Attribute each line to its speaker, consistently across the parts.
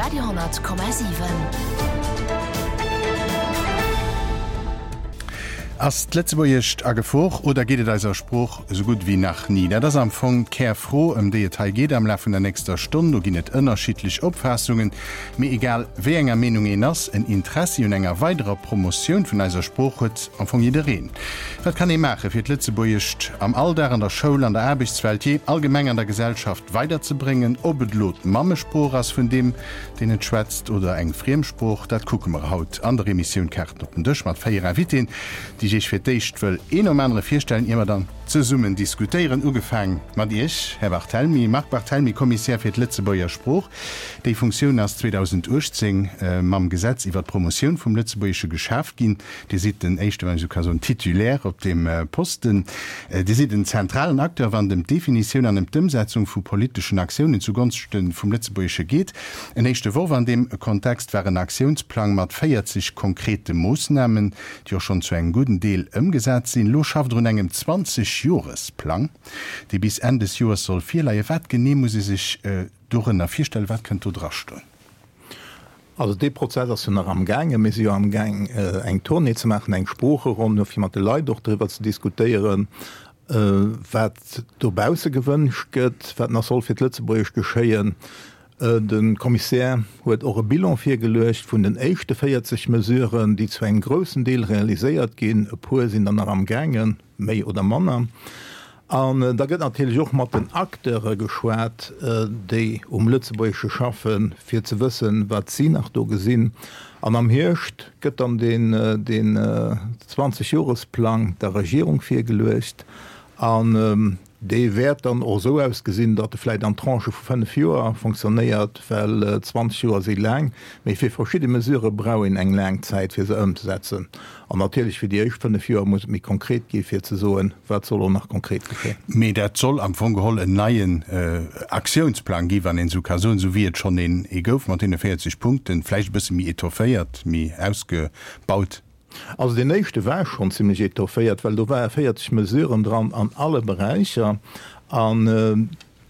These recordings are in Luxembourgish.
Speaker 1: Radio 10,7.
Speaker 2: Ass d'Lëtzebuergescht a Gefor oder geet et eiser Sprooch esou gutt ewéi nach ni? Dat ass am Fong d'Kärfro, ëm déi et hei geet am Laf vun der nächster Stonn. Do ginn et ënnerschiddlech Opfaassungen. Mee egal wéi enger Meenung een ass, en Interessi un enger weiderer Promotioun vun eiser Sprooch huet am Fong jiddereen. Wat kann ee maachen, fir d'Lëtzebuergescht am Alldag, an der Schoul, an der Aarbechtswelt, jee allgemeng an der Gesellschaft weiderzebréngen? Ob et elo d'Mammesprooch ass vun deem, deen et schwätzt, oder eng Friemsprooch, dat kucke mer haut an der Emissioun Kaarten op den Dësch mat 4 Invitéen, déi ech Iech fir d'éischt wëll een nom anere virstellen, ier mer dann zesummen diskutéieren. Ugefaang mat Iech, Här Barthelmy, Marc Barthelmy, Kommissär fir d'Lëtzebuerger Sprooch. Déi Funktioun ass 2018 mam Gesetz iwwer d'Promotioun vum Lëtzebuergesche geschaaft ginn. Dir sidd den éischte, wann ech esou ka soen, Titulaire op deem Posten. Dir sidd en zentralen Acteur, wann et ëm d'Definitioun an ëm d'Ëmsetzung vu politeschen Aktiounen zugonschte vum Lëtzebuergesche geet. En éischte Worf an deem Kontext war en Aktiounsplang mat 40 konkrete Moossnamen, déi och schonn zu engem gudden Deel ëmgesat sinn. Elo schafft Der un engem 20 Joresplang, dee bis Enn des Joers soll virleien. Wat genee muss ee sech dorënner virstellen? Wat kënnt do drastoen?
Speaker 3: Also dee Prozess ass jo nach amgaangen. Mir si jo amgaang eng Tournée ze maachen, eng Sproocheronn, fir mat de Leit och driwwer ze diskutéieren, wat dobausse gewënscht gëtt, wat nach soll fir d'Lëtzebuergesch geschéien. De Kommissär huet och e Bilan virgeluecht vun den éischte 40 Mesuren, déi zu engem groussen Deel realiséiert ginn. E puer sinn der nach amgaangen, méi oder manner. An da gëtt natierlech och mat den Acteure geschwat, déi um Lëtzebuergesche schaffen, fir ze wëssen, wat si nach do gesinn. An am Hierscht gëtt dann deen 20 Joresplang der Regierung virgeluecht. An dee wäert dann och esou ausgesinn, datt e vläicht an Tranchë vu 5 Joer fonctionnéiert, well 20 Joer si laang. Mee fir verschidde Mesurë brauch een eng laang Zäit, fir se ëmzesetzen. An natierlech fir déi éischt 5 Joer muss et méi konkret gi fir ze soen, wat soll och nach konkret geschéien.
Speaker 2: Mee dat soll am Fong geholl en neien Aktiounsplang gi, wann een esou ka soen, esou wéi et schonn een ee gouf mat deene 40 Punkten, vläicht e bësse méi étofféiert, méi ausgebaut.
Speaker 3: Also deen éischte war schonn zimlech étofféiert, well do ware 40 Mesuren dran an alle Beräicher. A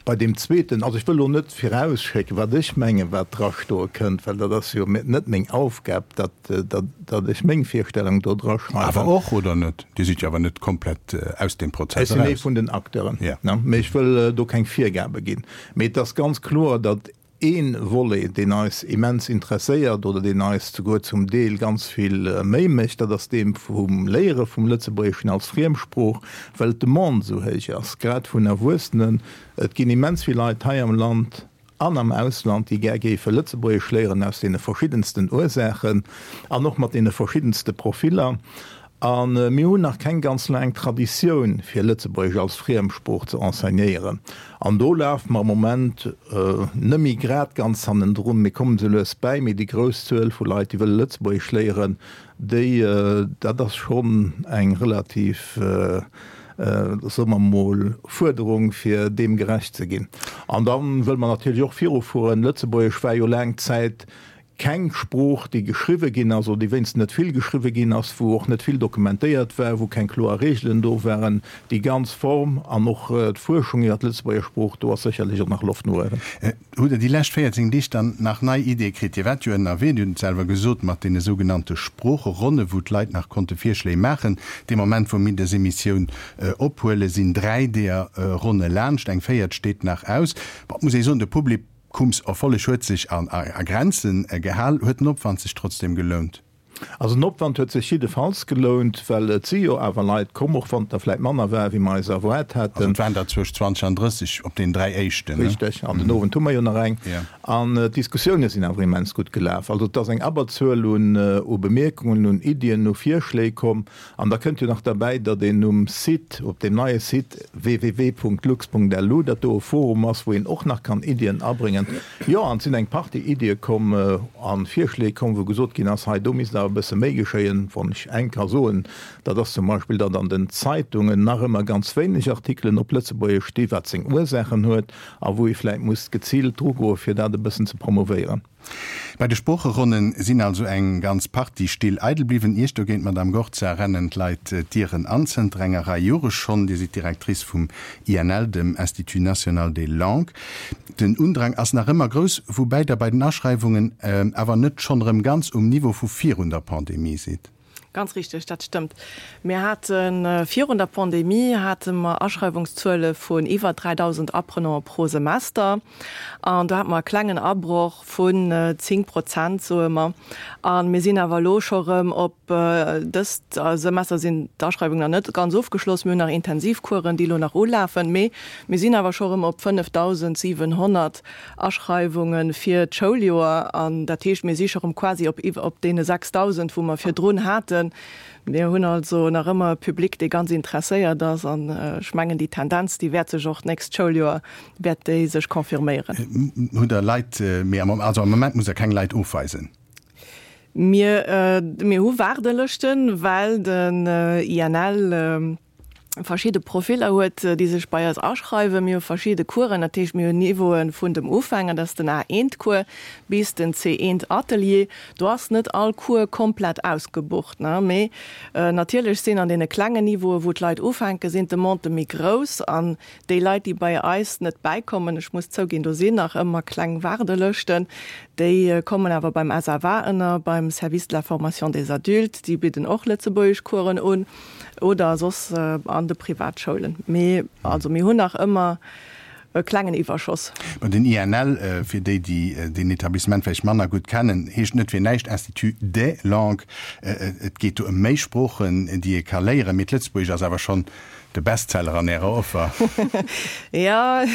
Speaker 3: bei deem zweeten, also ech wëll elo net virausschécken, wat ech mengen, wat drastoe kënnt, well dat ass jo net meng Aufgab, datt, datt ech meng Virstellung do draschreiwen.
Speaker 2: Awer och, oder net? Dir sidd jo awer net komplett aus deem Prozess eraus.
Speaker 3: Ech sinn ee vun den Acteuren, mee ech wëll do keng Virgabe ginn. Mee et ass ganz kloer, datt Ee Volet, deen eis immens interesséiert oder deen eis souguer zum Deel ganz vill Méi mécht, dat ass dee vum Léiere vum Lëtzebuergeschen als Friemsprooch, well d'Demande esou héich ass, grad vun Erwuessenen. Et ginn immens vill Leit hei am Land an am Ausland, déi gär géife Lëtzebuergesch léieren, aus deene verschiddensten Ursaachen an och mat deene verschiddenste Profiller. A mir hunn nach keng ganz laang Traditioun, fir Lëtzebuergesch als Friemsprooch ze enseignéieren. An do lafe mer am Moment net méi grad ganz hannendrun, mir kommen esou lues bäi, mee déi grouss Zuel vu Leit, déi wëlle Lëtzebuergesch léieren, déi, dat ass schonn eng relativ, soe mer emol, Fuerderung, fir deem gerecht ze ginn. An da wëlle mer natierlech och virufueren. Lëtzebuergesch war jo laang Zäit Keng Sprooch, déi geschriwwe ginn ass, oder déi wéinstens net vill geschriwwe ginn ass, wou och net vill dokumentéiert war, wou keng kloer Reegelen do waren. Déi ganz Form an och d'Fuerschung iwwer d'Lëtzebuerger Sprooch, do ass sécherlech och nach Loft no uewen.
Speaker 2: Hutt Der déi lescht 14 Deeg dann nach nei Ideeë kritt? Dir waart jo ënnerwee, Dir hutt et selwer gesot, mat deene sougenannte Sproocheronne, wou d'Leit nach konnte Virschléi maachen. Dee Moment, wou mir dës Emissioun ophuelen, sinn 3 deeër Ronne laanscht, eng véiert steet nach aus. Bon, et muss ee soen, de Public, Kumserfolleg huet sech a Grenzen gehal. Huet den Opwand sech trotzdem gelount?
Speaker 3: Also den Opwand huet sech jiddefalls gelount, well et si jo awer Leit komm, och wann et der vläit manner war, wéi mer eis erwaart haten.
Speaker 2: Also et waren der zwëscht 20 an 30 op deenen 3 éischten,
Speaker 3: ne? Richteg, an den Owend hu mer jo nach eng. An d'Diskussioune sinn awer immens gutt gelaf. Also et ass eng Abberzuel un Bemierkungen, un Iddien, u Virschléi komm. An da kënnt jo nach derbäi, datt een um Site, op deem neie Site www.lux.lu, datt do e Forum ass, wou een och nach kann Iddien abréngen. Jo, an et sinn eng Partie Iddie komm a Virschléi komm, wou gesot ginn ass, hei do misst awer e bësse méi geschéien. Wann ech eng ka soen, dat ass zum Beispill, datt an den Zeitungen nach ëmmer ganz wéineg Artikelen op Lëtzebuergesch sti, wat seng Ursaachen huet a wou ee vläicht muss geziilt drugoen, fir dat e bëssen ze promovéieren.
Speaker 2: Bei de Sproocheronne sinn also eng ganz Partie Still eidel bliwwen. Iech dogéint, Madamm Gorza, rennen d'Leit d'Dieren an, zënter enger Rei Jore schonn. Dir sidd Directrice vum INL, dem Institut national des langues. Den Undrang ass nach ëmmer grouss, woubäi Der bei den Aschreiwungen awer net schonn erëm ganz um Niveau vu virun der Pandemie sidd.
Speaker 1: Ganz richteg, dat stëmmt. Mir hate virun der Pandemie hate mer Aschreiwungszuele vun iwwer 3.000 Apprenanten pro Semester. An do hate mer e klengen Abroch vun 10 Prozent, soe mer. A mir sinn awer elo scho rëm op, dëst Semester sinn d'Aschreiwungen nach net ganz ofgeschloss, mir hunn nach Intensivcoursen, déi elo nach ulafen, mee mir sinn awer scho rëm op 5.700 Aschreiwunge fir d'Schouljoer, an dat heescht, mir si scho rëm quasi op op deene 6.000, wou mer virdrun haten. Mir hunn also nach ëmmer e Public, dee ganz interesséiert ass, an ech mengen, déi Tendenz, déi wäert sech och d'nächst Schouljoer wäert déi sech confirméieren.
Speaker 2: Hutt Der Leit, mee am, also am Moment musst Der keng Leit ofweisen?
Speaker 1: Mir, mir hu Waardelëschten, well den INL verschidde Profiller huet, déi sech bei eis aschreiwen. Mir hu verschidde Coursen, dat heescht mir hunn Niveaue vun dem Ufänger, dat ass den A1-Cours, bis den C1-Atelier. Do ass net all Cours komplett ausgebucht, mee natierlech sinn an deene klengen Niveaue wou d'Leit ufänken, sinn d'Demandë méi grouss an déi Leit, déi bei eis net bäikommen, ech muss zouginn, do sinn nach ëmmer kleng Waardelëschten, déi kommen awer beim SFA ënner, beim Service de la formation des adultes, déi bidden och Lëtzebuergeschcoursen un. Oder soss an de Privatschoulen. Mee also mir hunn nach ëmmer e klengen Iwwerschoss.
Speaker 2: Bon, den INL, fir déi, déi deen Etablissement vläicht manner gutt kennen, heescht net fir näischt Institut des langues. Et geet do ëm méi Sproochen, déi ee ka léieren, mee d'Lëtzebuergesch ass awer schonn de Bestseller an Ärer Offer.
Speaker 1: Jo,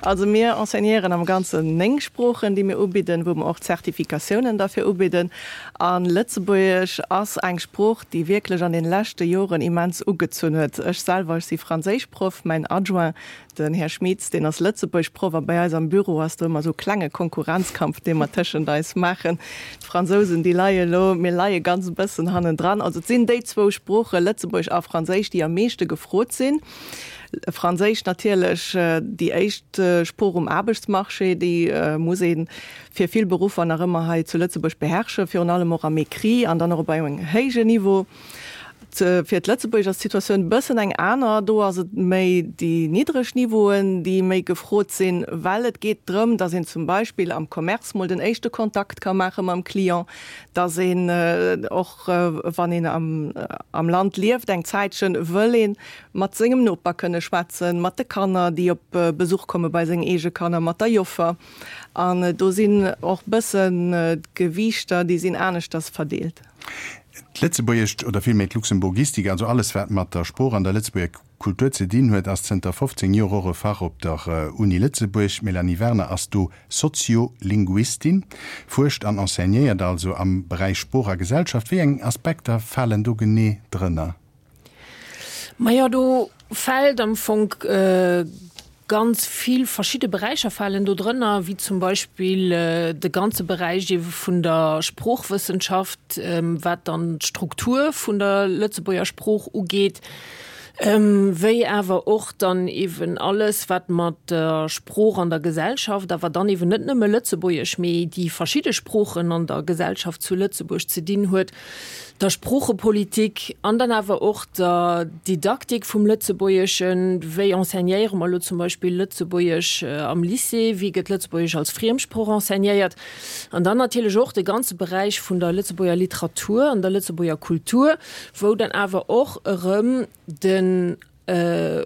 Speaker 1: also mir enseignéieren am Ganzen 9 Sproochen, déi mir ubidden, wou mer och Zertifikatiounen derfir ubidden. A Lëtzebuergesch ass eng Sprooch, déi wierklech an den leschte Joren immens ugezunn huet. Ech selwer, ech si Franséischproff, mäin Adjoint, den Här Schmitz, deen ass Lëtzebuergproff a bei eis am Büro ass do ëmmer esou klenge Konkurrenzkampf, dee mer tëschent eis maachen. D'Fransousen, déi leie elo, mir leie ganz e bëssen hannendran. Also et sinn déi zwou Sproochen, Lëtzebuergesch a Franséisch, déi am meeschte gefrot sinn. Franséisch natierlech déi éischt Sprooch um Aarbechtsmarché, déi muss ee fir vill Beruffer nach ëmmer hei zu Lëtzebuerg beherrschen, virun allem och am Écrit an dann och op engem héijen Niveau. Fir d'Lëtzebuergesch ass d'Situatioun e bëssen eng aner. Do ass et méi déi niddreg Niveauen, déi méi gefrot sinn, well et geet drëm, datt een zum Beispill am Commerce mol den éischte Kontakt ka maache mam Client, datt een och, wann een am Land lieft eng Zäitchen, wëll ee mat sengem Noper kënne schwätzen, mat de Kanner, déi op Besuch komme bei seng eege Kanner, mat der Joffer. An do sinn och bëssen d'Gewiichter, déi sinn aneschters verdeelt.
Speaker 2: D'Lëtzebuergescht, oder villméi d'Luxemburgistik, also alles wat mat der Sprooch an der Lëtzebuerger Kultur ze dinn huet, ass zënter 15 Joer och e Fach op der Uni Lëtzebuerg. D'Mélanie Werner ass do Soziolinguistin, fuerscht an enseignéiert also am Beräich Sprooch a Gesellschaft. Wéi eng Aspekter falen do genee drënner?
Speaker 4: Majo, do fält am Fong ganz vill verschidde Beräicher falen do drënner, wéi zum Beispill de ganze Beräich eebe vun der Sproochwëssenschaft, wat dann d'Struktur vun der Lëtzebuerger Sprooch ugeet, wéi awer och dann eeben alles, wat mat der Sprooch an der Gesellschaft, awer dann eeben net nëmme Lëtzebuergesch, mee déi verschidde Sproochen an der Gesellschaft zu Lëtzebuerg ze dinn huet. der Sproochepolitik an dann awer och der Didaktik vum Lëtzebuergeschen, wéi enseignéiere mer elo zum Beispill Lëtzebuergesch am Lycée, wéi gëtt Lëtzebuergesch als Friemsprooch enseignéiert an dann natierlech och de ganze Beräich vun der Lëtzebuerger Literatur an der Lëtzebuerger Kultur, wou dann awer och erëm de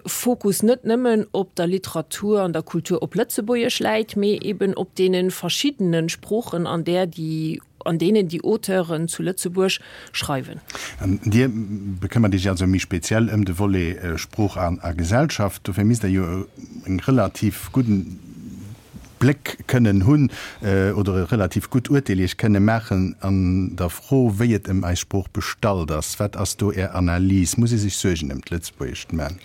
Speaker 4: Fokus net nëmmen op der Literatur an der Kultur op Lëtzebuergesch läit, mee eben op deene verschiddene Sproochen, an där déi, an deenen déi Auteuren zu Lëtzebuerg schreiwen.
Speaker 2: An Dir bekëmmert Iech also méi speziell ëm de Volet Sprooch a Gesellschaft. Dofir misst Der jo e relativ gudden Bléck kënnen hunn oder e relativ gutt Urteel Iech kënne maachen an der Fro, wéi et ëm eis Sprooch bestallt ass. Wat ass do Är Analys? Muss ee sech Suergen ëm d'Lëtzebuergescht man?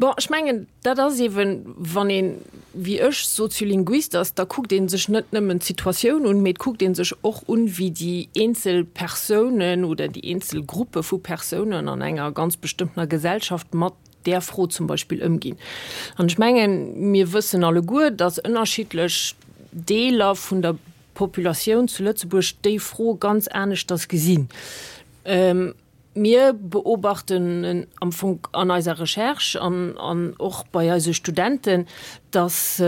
Speaker 4: Bon, ech mengen, dat ass eeben, wann een, wéi ech, Soziolinguist ass, da kuckt ee sech net nëmmen d'Situatioun un, mee et kuckt ee sech och un, wéi déi eenzel Persounen oder déi eenzel Gruppe vu Persounen an enger ganz bestëmmtener Gesellschaft mat där Fro zum Beispill ëmginn. An ech mengen, mir wëssen alleguer, dass ënnerschiddlech Deeler vun der. d'Populatioun zu Lëtzebuerg déi Fro ganz aneschters gesinn. Mir beobachten am Fong an eiser Recherche an an och bei eise Studenten, datt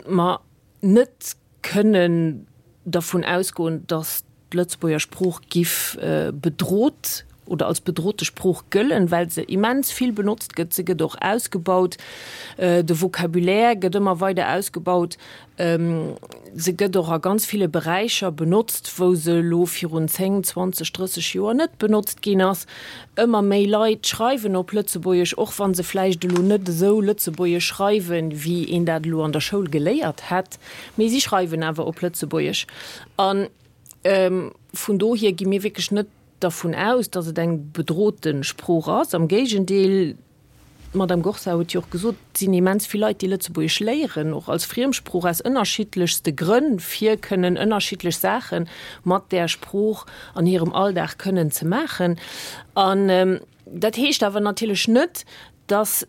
Speaker 4: mer net kënnen dervun ausgoen, datt d'Lëtzebuerger Sprooch giff bedrot oder als bedrote Sprooch gëllen, well se immens vill benotzt gëtt. Se gëtt och ausgebaut, de Vocabulaire gëtt ëmmer weider ausgebaut. Se gëtt och a ganz ville Beräicher benotzt, wou se elo virun 10, 20, 30 Joer net benotzt ginn ass. Ëmmer méi Leit schreiwen op Lëtzebuergesch, och wa se vläicht elo net esou Lëtzebuergesch schreiwen, wéi een dat elo an der Schoul geléiert hätt, mee si schreiwen awer op Lëtzebuergesch. A vun dohier gi mir wierklech net dervun aus, datt et eng bedrote Sprooch ass. Am Géigendeel, D'Madame Gorsa huet jo och gesot, et sinn immens vill Leit, déi Lëtzebuergesch léieren, och als Friemsprooch, aus ënnerschiddlechste Grënn, fir kënnen ënnerschiddlech Saache mat där Sprooch an hirem Alldag kënnen ze maachen. An dat heescht awer natierlech net, dass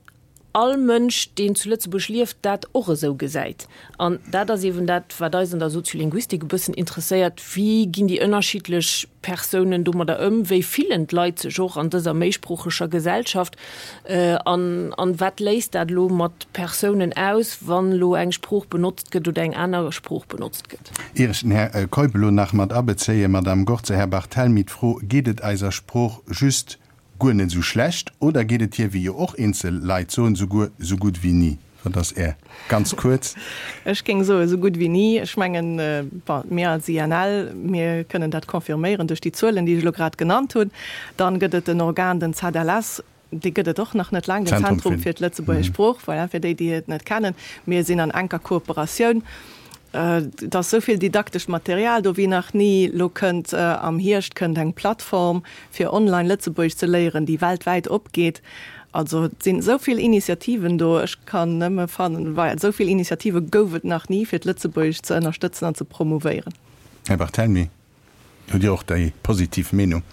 Speaker 4: all Mënsch, deen zu Lëtzebuerg lieft, dat och esou gesäit. An dat ass eeben dat, wat eis an der Soziolinguistik e bëssen interesséiert, Wéi ginn déi ënnerschiddlech Persounen domadder ëm? Wéi fillen d'Leit sech och an dëser méisproocheger Gesellschaft? An, an wat léist dat elo mat Persounen aus, wann elo eng Sprooch benotzt gëtt oder eng aner Sprooch benotzt gëtt?
Speaker 2: Ier ech den Här Keup elo nach mat abezéien, Madamm Gorze, Här Barthelmy, d'Fro, Geet et eiser Sprooch just guer net esou schlecht oder geet et hir, wéi jo och eenzel Leit soen, souguer sou gutt wéi ni? Wat ass Är, ganz kuerz?
Speaker 1: Ech géing soe sou gutt wéi ni. Ech mengen, bon, mir als INL, mir kënnen dat confirméieren duerch déi Zuelen, déi ech elo grad genannt hunn. Dann gëtt et en Organ, den ZLS, dee gëtt et och nach net laang, den Zentrum fir d'Lëtzebuergesch Sprooch, voilà, fir déi, déi et net kennen. Mir sinn an enker Kooperatioun. Et ass esou vill didaktescht Material do wéi nach ni. Lo kënnt am Hierscht kënnt eng Plattform fir online Lëtzebuergesch ze léieren, déi weltwäit opgeet. Also et sinn esou vill Initiativen do. Ech kann nëmme fannen, well esou vill Initiative gouf et nach ni fir d'Lëtzebuergescht ze ënnerstëtzen an ze promouvéieren.
Speaker 2: Här Barthelmy, hutt Dir och déi positiv Meenung?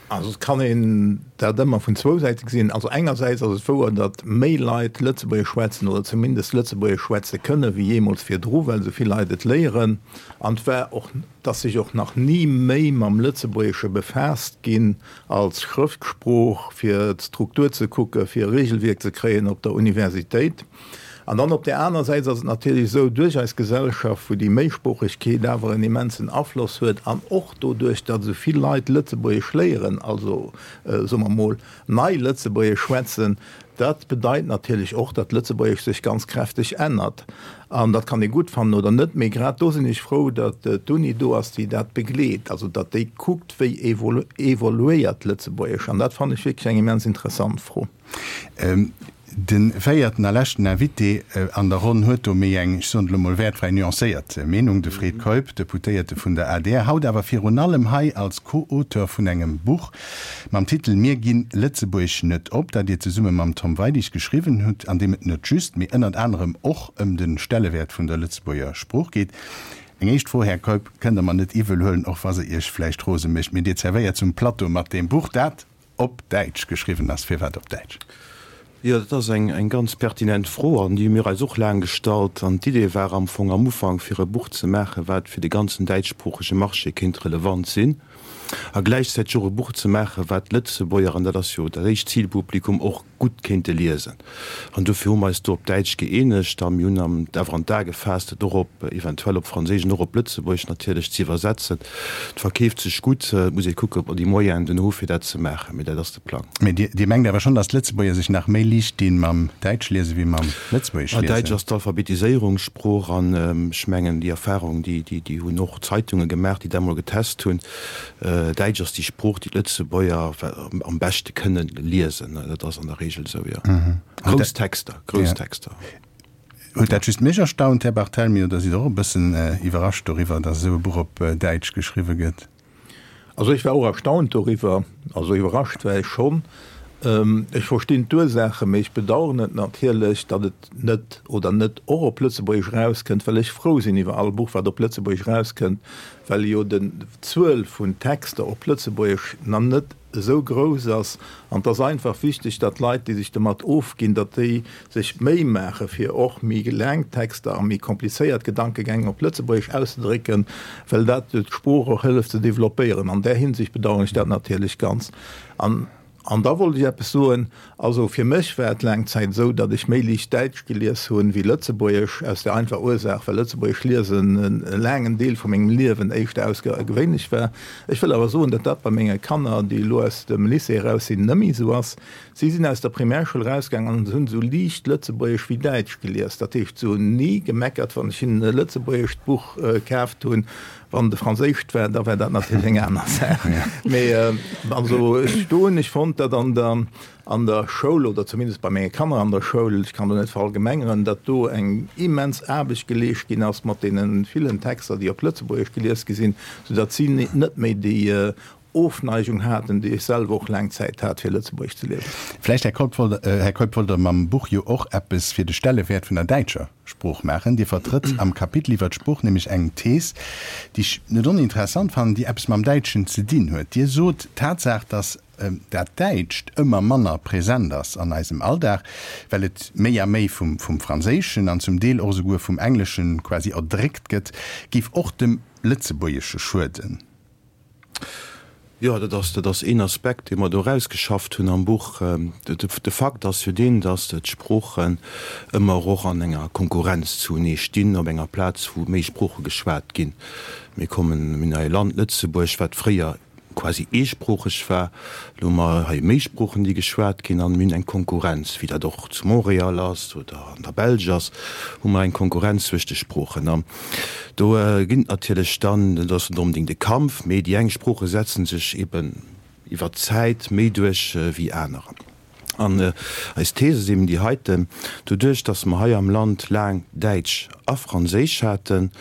Speaker 3: Also et kann een dat ëmmer vun zwou Säite gesinn. Also engersäits ass et wouer, datt méi Leit Lëtzebuergesch schwätzen oder zumindest Lëtzebuergesch schwätze kënne wéi jeemools virdru, well esou vill Leit et léieren. An et war och, et ass sech och nach ni méi mam Lëtzebuergesche befaasst ginn als Schrëftsprooch, fir d'Struktur ze kucken, fir e Regelwierk ze kréien op der Universitéit. An dann op där aner Säit ass et natierlech esou, duerch eis Gesellschaft, wou déi Méisproochegkeet awer en immensen Afloss huet an och doduerch, datt esou vill Leit Lëtzebuergesch léieren, also soe mer emol nei Lëtzebuergesch schwätzen, dat bedeit natierlech och, datt Lëtzebuergesch sech ganz kräfteg ännert. An dat kann ee gutt fannen oder net, mee grad do sinn ech frou, datt d'Uni do ass, déi dat begleet, also datt déi kuckt, wéi evoluéiert Lëtzebuergesch. An dat fannen ech wierklech eng immens interessant Fro.
Speaker 2: De véierten a leschten Invité an der Ronn huet do méi eng, ech soen et elo mol wäertfräi, nuancéiert Meenung, de Fred Keup, Deputéierte vun der adr, haut awer virun allem hei als Co-Auteur vun engem Buch mam Titel Mir ginn Lëtzebuerg net op, dat Dir zesumme mam Tom Weidig geschriwwen hutt, an deem et net just, mee ënnert anerem och ëm de Stellewäert vun der Lëtzebuerger Sprooch geet. Eng éischt Fro, Här Keup, kënnt Der mer net iwwel huelen, och wa se Iech vläicht rose mécht, mee Dir zerwéiert zum Plateau mat deem Buch, dat Op Däitsch geschriwwen ass. Firwat op Däitsch?
Speaker 5: Jo, dat ass eng ganz pertinent Fro an déi hu mir eis och laang gestallt. An d'Idee war am Fong am Ufank, fir e Buch ze maachen, wat fir de ganzen däitschsproochege Marché kéint relevant sinn a gläichzäiteg och e Buch ze maachen, wat d'Lëtzebuerger, an dat ass jo dat éischt Zilpublikum, och gutt kéinte liesen. An dofir hu mer eis do op Däitsch gëeenegt a mir hunn am awer an d'A gefaasst, et och op, eventuell op Franséisch an och op Lëtzebuergesch natierlech ze iwwersetzen. Et verkeeft sech gutt. Et muss ee kucken, ob mer déi Moyenen dunn hu fir dat ze maachen, mee dat ass de Plang.
Speaker 2: Mee Dir mengt awer schonn, datt d'Lëtzebuerger sech nach méi liicht dinn mam Däitschliese wéi mam Lëtzebuergeschliesen?
Speaker 5: Däitsch ass d'Alphabetiséierungssprooch an ech mengen, déi Erfahrung, déi, déi hunn och Zeitunge gemaach, déi dat emol getest hunn. Däitsch ass déi Sprooch, déi d'Lëtzebuerger am beschte kënnen liesen. Dat ass an der Regel esou, jo. Grouss Texter, grouss Texter.
Speaker 2: Huet dat just mech erstaunt, Här Barthelmy, oder sidd Der och e bëssen iwwerrascht doriwwer, datt esou e Buch op Däitsch geschriwwe gëtt?
Speaker 3: Also ech war och erstaunt doriwwer. Also iwwerrascht war ech schonn. Ech verstinn d'Ursaachen, mee ech bedauern et natierlech, datt et net oder net och op Lëtzebuergesch erauskënnt, well ech frou sinn iwwer all Buch, wat op Lëtzebuergesch erauskënnt, well jo den d'Zuel vun Texter op Lëtzebuergesch nach net. esou grouss ass. An et ass einfach wichteg, datt d'Leit, déi sech domat ofginn, datt déi sech d'Méi maache fir och méi laang Texter a méi komplizéiert Gedankegäng op Lëtzebuergesch auszedrécken, well dat jo d'Sprooch och hëlleft ze developpéieren. An där Hinsicht bedauern ech dat natierlech ganz. An An da wollt ech eppes soen, Also fir mech war et laang Zäit esou, datt ech méi liicht Däitsch gelies hunn wéi Lëtzebuergesch, aus der einfacher Ursaach, well Lëtzebuergesch liesen e laangen Deel vu mengem Liewen éischter ausgergewéinlech war. Ech wëll awer soen, datt dat bei menge Kanner, déi elo aus dem Lycée eraus sinn, net méi esou ass. Si sinn aus der Primärschoul erausgaangen an hunn esou liicht Lëtzebuergesch wéi Däitsch gelies. Dat heescht, se hunn ni gemeckert, wann ech hinnen e lëtzebuergescht Buch kaaft hunn. Wann et e franséischt war, da war dat natierlech eng aner Saach. Mee also ech do hunn ech fonnt, datt an der an der Schoul, oder zumindest bei menge Kanner an der Schoul, ech kann do net verallgemengeren, datt do eng immens Aarbecht geleescht ginn ass mat deene villen Texter, déi op Lëtzebuergesch gelies gi sinn, soudatt si net méi déi Ofneigung haten, déi ech selwer och laang Zäit hat, fir Lëtzebuergesch ze liesen.
Speaker 2: Vläicht, Här Keup, wollt, Här Keup, wollt Der mam Buch jo och eppes fir de Stellewäert vun der däitscher Sprooch maachen. Dir vertrëtt am Kapitel iwwer d'Sprooch nämlech eng Thees, déi ech net oninteressant fannen, déi eppes mam Däitschen ze dinn huet. Dir sot, d'Tatsaach, datt dat Däitscht ëmmer manner present ass an eisem Alldag, well et méi a méi vum Franséischen an zum Deel och esouguer vum Engleschen quasi erdréckt gëtt, géif och dem Lëtzebuergesche schueden.
Speaker 5: Jo, dat ass, dat ass een Aspekt, dee mer do erausgeschafft hunn am Buch. De Fakt ass jo deen, datt d'Sproochen ëmmer och an enger Konkurrenz zunee stinn, op enger Plaz, wou méi Sprooche geschwat ginn. Mir kommen, mir hunn hei e Land, Lëtzebuerg, wat fréier quasi eesproocheg war. Elo hu mer hei méi Sproochen, déi geschwat ginn, an mir hunn eng Konkurrenz, wéi dat och zu Montréal ass oder an der Belsch ass, hu mer eng Konkurrenz zwëscht de Sproochen. An Do ginn et natierlech dann, dat ass net onbedéngt e Kampf, mee déi eng Sprooche setzen sech eben iwwer d'Zäit méi duerch wéi anerer. An eis Thees ass eben déi heiten, Doduerch, datt mer hei am Land laang Däitsch a Franséisch haten,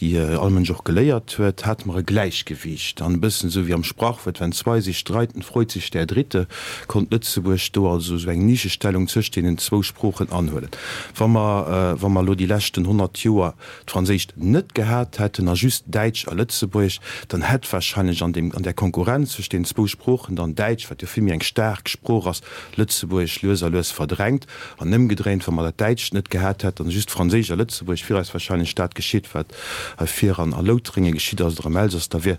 Speaker 5: déi all Mënsch och geléiert huet, hate mer e Gläichgewiicht. An e bëssen esou wéi am Sprachwuert, Wenn zwei sich streiten, freut sich der Dritte, konnt Lëtzebuerg do also esou eng Nischestellung zwëscht deenen zwou Sproochen anhuelen. Wa mer, wa mer elo déi leschten 100 Joer d'Franséischt net gehat hätten a just Däitsch a Lëtzebuergesch, dann hätt wahrscheinlech an deem, an där Konkurrenz zwëscht deenen zwou Sproochen dann Däitsch, wat jo vill méi eng staark Sprooch ass, Lëtzebuergesch lues a lues verdrängt. An ëmgedréint, wa mer dat Däitscht net gehat hätten a just Franséisch a Lëtzebuergesch, wier eis wahrscheinlech dat geschitt, wat hei vir an a Loutrénge geschitt ass oder am Elsass, da wier,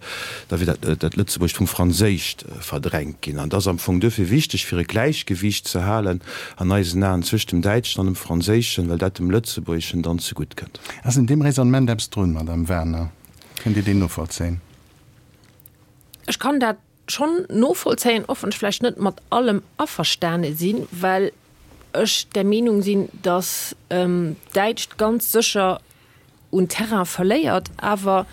Speaker 5: da wier dat, dat Lëtzebuergescht vum Franséischt verdrängt ginn. An et ass am Fong duerfir wichteg, fir e Gläichgewiicht ze halen an eisen Aen zwëscht dem Däitschen an dem Franséischen, well dat dem Lëtzebuergeschen dann zegutt kënnt.
Speaker 2: Ass un deem Raisonnement eppes drun, Madame Werner? Kënnt Dir deen novollzéien?
Speaker 4: Ech kann dat schonn novollzéien, och wann ech vläicht net mat allem averstane sinn, well ech der Meenung sinn, datt d'Däitscht ganz sécher un Terrain verléiert. Awer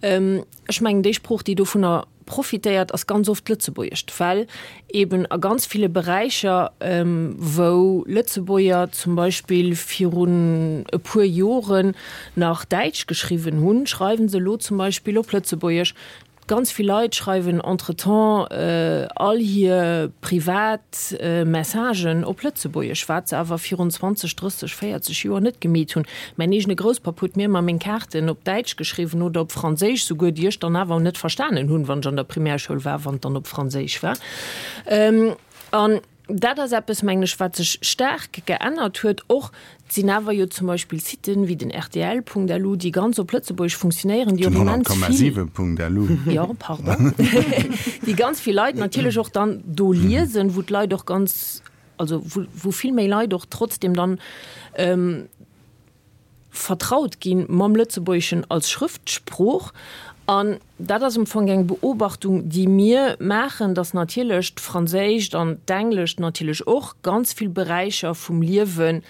Speaker 4: ech mengen, déi Sprooch, déi dovunner profitéiert, ass ganz oft d'Lëtzebuergescht, well eben a ganz ville Beräicher, wou Lëtzebuerger zum Beispill virun e puer Joren nach Däitsch geschriwwen hunn, schreiwe se elo zum Beispill op Lëtzebuergesch. Ganz vill Leit schreiwen entretemps all hir privat Messagen op Lëtzebuergesch, wat se awer virun 20, 30, 40 Joer net gemeet hunn. Mäin eegene Grousspapp huet mir ëmmer meng Kaarten op Däitsch geschriwwen oder op Franséisch souguer, déi ech dann awer net verstanen hunn, wann ech an der Primärschoul war, wann et dann op Franséisch war. An dat ass eppes, mengen ech, wat sech staark geännert huet. Och et sinn awer jo zum Beispill Siten wéi den rtl.lu, déi ganz op Lëtzebuergesch funktionéieren, déi och
Speaker 2: immens vill. Den 100,7.lu.
Speaker 4: Jo, pardon. Déi ganz vill Leit natierlech och dann do liesen, wou d'Leit och ganz, also wou, wou vill méi Leit och trotzdem dann vertraut gi mam Lëtzebuergeschen als Schrëftsprooch. An dat ass am Fong eng Beobachtung, déi mir maachen, datt natierlech d'Franséischt an d'Englescht natierlech och ganz vill Beräicher vum Liewen,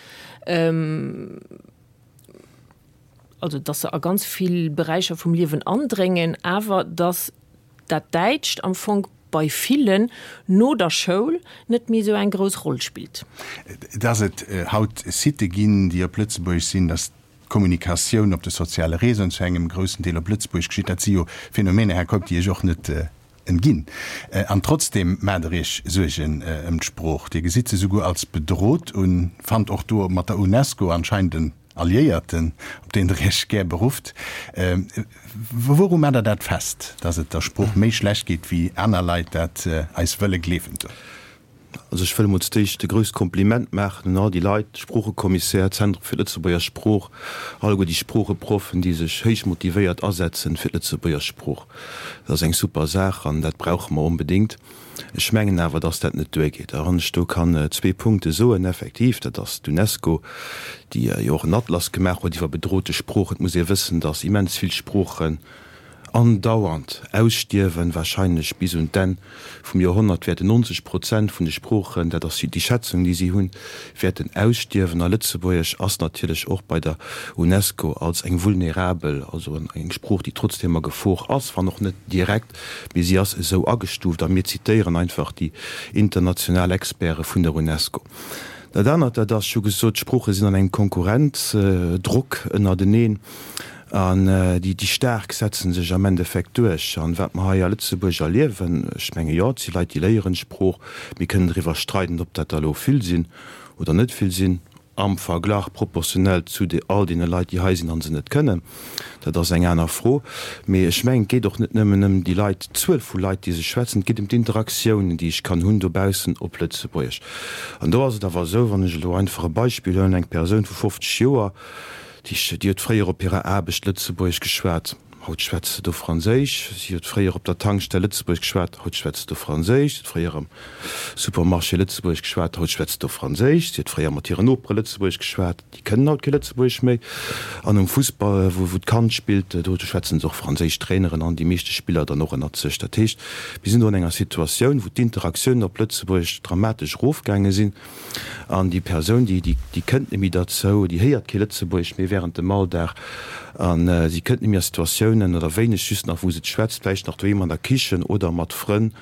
Speaker 4: also datt se a ganz vill Beräicher vum Liewen andréngen, awer datt dat Däitscht am Fong bei villen no der Schoul net méi esou eng grouss Roll spillt.
Speaker 2: Dass et haut Sitë ginn, déi op Lëtzebuergesch sinn, dass d'Kommunikatioun op de soziale Réseauen zu engem groussen Deel op Lëtzebuergesch geschitt, dat si jo Phänomener, Här Keup, déi Iech och net entginn. An trotzdeem maacht Der Iech Suergen ëm d'Sprooch. Dir gesitt se souguer als bedrot un, fannt och do mat der UNESCO anscheinend en. Alliéierten, op deen Der Iech gär berufft. Wouru maacht Der dat fest, datt et der Sprooch méi schlecht geet, wéi aner Leit dat eis wëlle gleewen doen?
Speaker 5: Also ech wëll emol zudéischt e grousst Kompliment maachen un all déi Leit, Sproochekommissär, Zentrum fir d'Lëtzebuerger Sprooch, alleguer déi Sproocheproffen, déi sech héich motivéiert asetzen fir d'Lëtzebuerger Sprooch. Dat ass eng super Saach an dat brauche mer onbedéngt. Ech mengen awer, dass dat net duergeet. A wann ech do kann zwee Punkte soen, effektiv, dat ass d'UNESCO, déi jo och en Atlas gemaach huet iwwer bedrote Sproochen. Et muss ee wëssen, dass immens vill Sproochen andauernd ausstierwen, wahrscheinlech bis un d'Enn vum Joerhonnert wäerten 90 Prozent vun de Sproochen, dat ass déi Schätzung, déi si hunn, wäerten ausstierwen. A Lëtzebuergesch ass natierlech och bei der UNESCO als eng vulnerabel, also eng Sprooch, déi trotzdeem a Gefor ass, wann och net direkt, mee si ass esou agestuuft a mir zitéieren einfach déi international Experte vun der UNESCO. Dat anert, dat ass, ech hu gesot, d'Sprooche sinn an engem Konkurrenzdrock ënnerteneen an déi Staark setze sech am Endeffekt duerch. An wat mer hei a Lëtzebuerg erliewen, ech menge jo, et si Leit, déi léieren d'Sprooch, mir kënnen driwwer streiden, ob dat der elo vill sinn oder net vill sinn, am Verglach proportionell zu all deene Leit, déi hei sinn a se net kënnen, dat ass eng aner Fro. Mee ech mengen, et geet och net nëmmen ëm déi Leit, d'Zuel vu Leit, déi se schwätzen, et geet ëm d'Interaktiounen, déi ech kann hunn dobaussen op Lëtzebuergesch. An do ass et awer esou, wann ech elo einfach e Beispill huelen, eng Persoun vu 50 Joer, déi huet fréier op hirer Aarbecht Lëtzebuergesch geschwat, Haut schwätzt se do Franséisch. Si huet fréier op der Tankstell Lëtzebuergesch geschwat, haut schwätzt se do Franséisch. Si huet fréier am Supermarché Lëtzebuergesch geschwat, haut schwätzt se do Franséisch. Si huet fréier mat hiren Nopere Lëtzebuergesch geschwat, déi kënnen haut kee Lëtzebuergesch méi. An um Fussball, wou d'Kand spillt, do schwätzen se och Franséisch, d'Traineren an déi meeschte Spiller dann och ënnert sech. Dat heescht, mir sinn do an enger Situatioun, wou d'Interaktiounen op Lëtzebuergesch dramatesch erofgaange sinn. An déi Persoun, déi, déi kënnt net méi derzou, déi héiert kee Lëtzebuergesch méi während dem Alldag a si kënnt net méi a Situatiounen oder wéineg just nach, wou se et schwätzt, vläicht nach doheem an der Kichen oder mat Frënn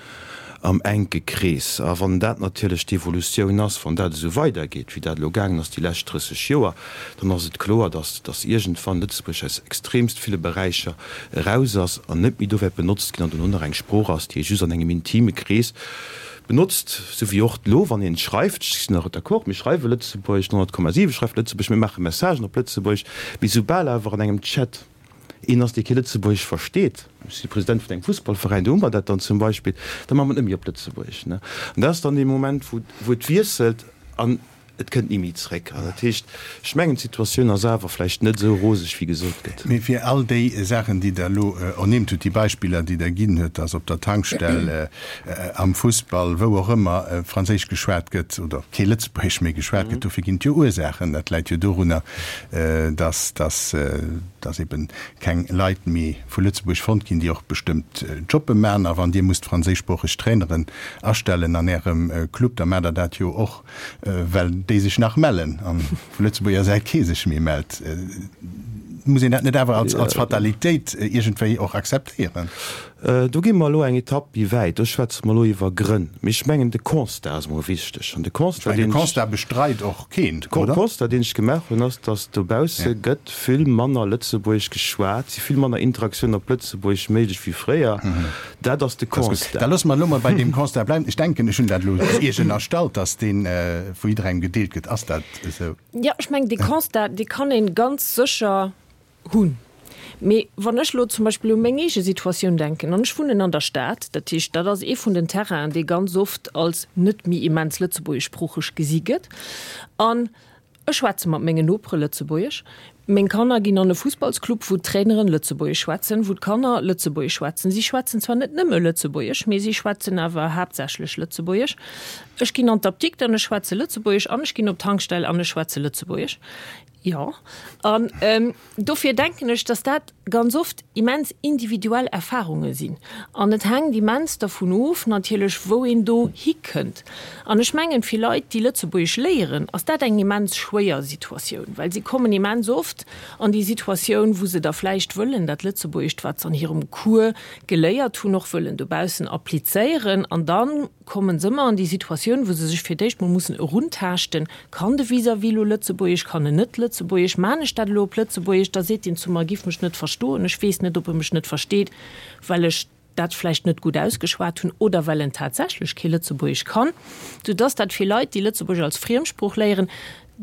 Speaker 5: am enke Krees. A wann dat natierlech d'Evolutioun ass, wann dat esou weidergeet, wéi dat elo gaangen ass déi lescht 30 Joer, dann ass et kloer, dass, dass iergendwann Lëtzebuerg aus extremst ville Beräicher eraus ass an net méi do wäert benotzt ginn an dono nach eng Sprooch ass, déi ee just an engem intime Krees Benotzt, sou wéi och elo, wann een schreift, ech sinn och d'accord, mir schreiwe Lëtzebuergesch, 100,7 schreift Lëtzebuergesch, mir maache Messagen op Lëtzebuergesch, mee soubal awer an engem Chat een ass, dee kee Lëtzebuergesch versteet, ech si President vun engem Fussballveräin, do hu mer dat dann zum Beispill, da maache mer et net méi op Lëtzebuergesch. An dat ass dann dee Moment, wou et wiesselt an Et kënnt ni méi zréck. An dat heescht, ech mengen, d'Situatioun ass awer vläicht net esou roseg, wéi gesot gëtt.
Speaker 2: Mee fir all déi Saachen, déi Der elo ernimmt hutt, déi Beispiller, déi Der ginn hutt, dass op der Tankstell, am Fussball, wou och ëmmer, Franséisch geschwat gëtt oder kee Lëtzebuergesch méi geschwat gëtt, dofir ginn et jo Ursaachen. Dat läit jo dorunner, dass, dass, dass eben keng Leit méi vu Lëtzebuerg fonnt ginn, déi och bestëmmt Jobbe maachen. A wann Dir musst franséischsproocheg Traineren astellen an Ärem Club, da maacht Der dat jo och, well déi sech nach mellen an vu Lëtzebuerger Säit kee sech méi mellt. Muss een dat net awer als, als Fatalitéit iergendwéi och akzeptéieren?
Speaker 5: Do gi mer elo eng Etapp méi wäit. Do schwätze mer elo iwwer Grënn. Mee ech mengen, de Constat ass emol wichteg. An de
Speaker 2: Constat, deen ech. De Constat bestreit och keen,
Speaker 5: oder? De Constat, deen ech gemaach hunn, ass, datt dobausse gëtt vill manner Lëtzebuergesch geschwat, si vill manner Interaktiounen op Lëtzebuergesch méiglech wéi fréier. Dat ass de Constat.
Speaker 2: Da loosse mer elo mol bei deem Constat bleiwen. Ech denken, ech hunn dat elo Iech ënnerstallt, dass dee vu jidderengem gedeelt gëtt. Ass dat esou?
Speaker 4: Jo, ech mengen, dee Constat, dee kann ee ganz sécher hunn. Mee wann ech elo zum Beispill u meng eege Situatioun denken, an ech wunnen an der Stad, dat heescht, dat ass ee vun den Terrainen, dee ganz oft als net méi immens lëtzebuergeschsproocheg gesi gëtt, an Ech schwätze mat mengen Nopere Lëtzebuergesch. Meng Kanner ginn an e Fussballsclub, wou d'Traineren Lëtzebuergesch schwätzen, wou d'Kanner Lëtzebuergesch schwätzen. Si schwätzen zwar net nëmme Lëtzebuergesch, mee si schwätzen awer haaptsächlech Lëtzebuergesch. Ech ginn an d'Apdikt an ech schwätze Lëtzebuergesch an ech ginn op d'Tankstell an ech schwätze Lëtzebuergesch. Jo. An dofir denken ech, dass dat ganz oft immens individuell Erfahrunge sinn. An et hänkt immens dervun of natierlech, wou een do hikënnt. An ech mengen, fir Leit, déi Lëtzebuergesch léieren, ass dat eng immens schwéier Situatioun, well si kommen immens oft an déi Situatioun, wou se da vläicht wëllen dat Lëtzebuergescht, wat se an hirem Cours geléiert hunn, och wëllen dobaussen applizéieren. An da kommen se ëmmer an déi Situatioun, wou se sech fir d'éischt mol mussen eruntaaschten, Kann de Vis-à-vis elo Lëtzebuergesch, kann en net Lëtzebuergesch, maan ech dat elo op Lëtzebuergesch, da seet deen zu mer, e giff mech net verstoen, ech weess net, ob e mech net versteet, well ech dat vläicht net gutt ausgeschwat hunn oder well en tatsächlech kee Lëtzebuergesch kann, soudass dat fir Leit, déi Lëtzebuergesch als Friemsprooch léieren,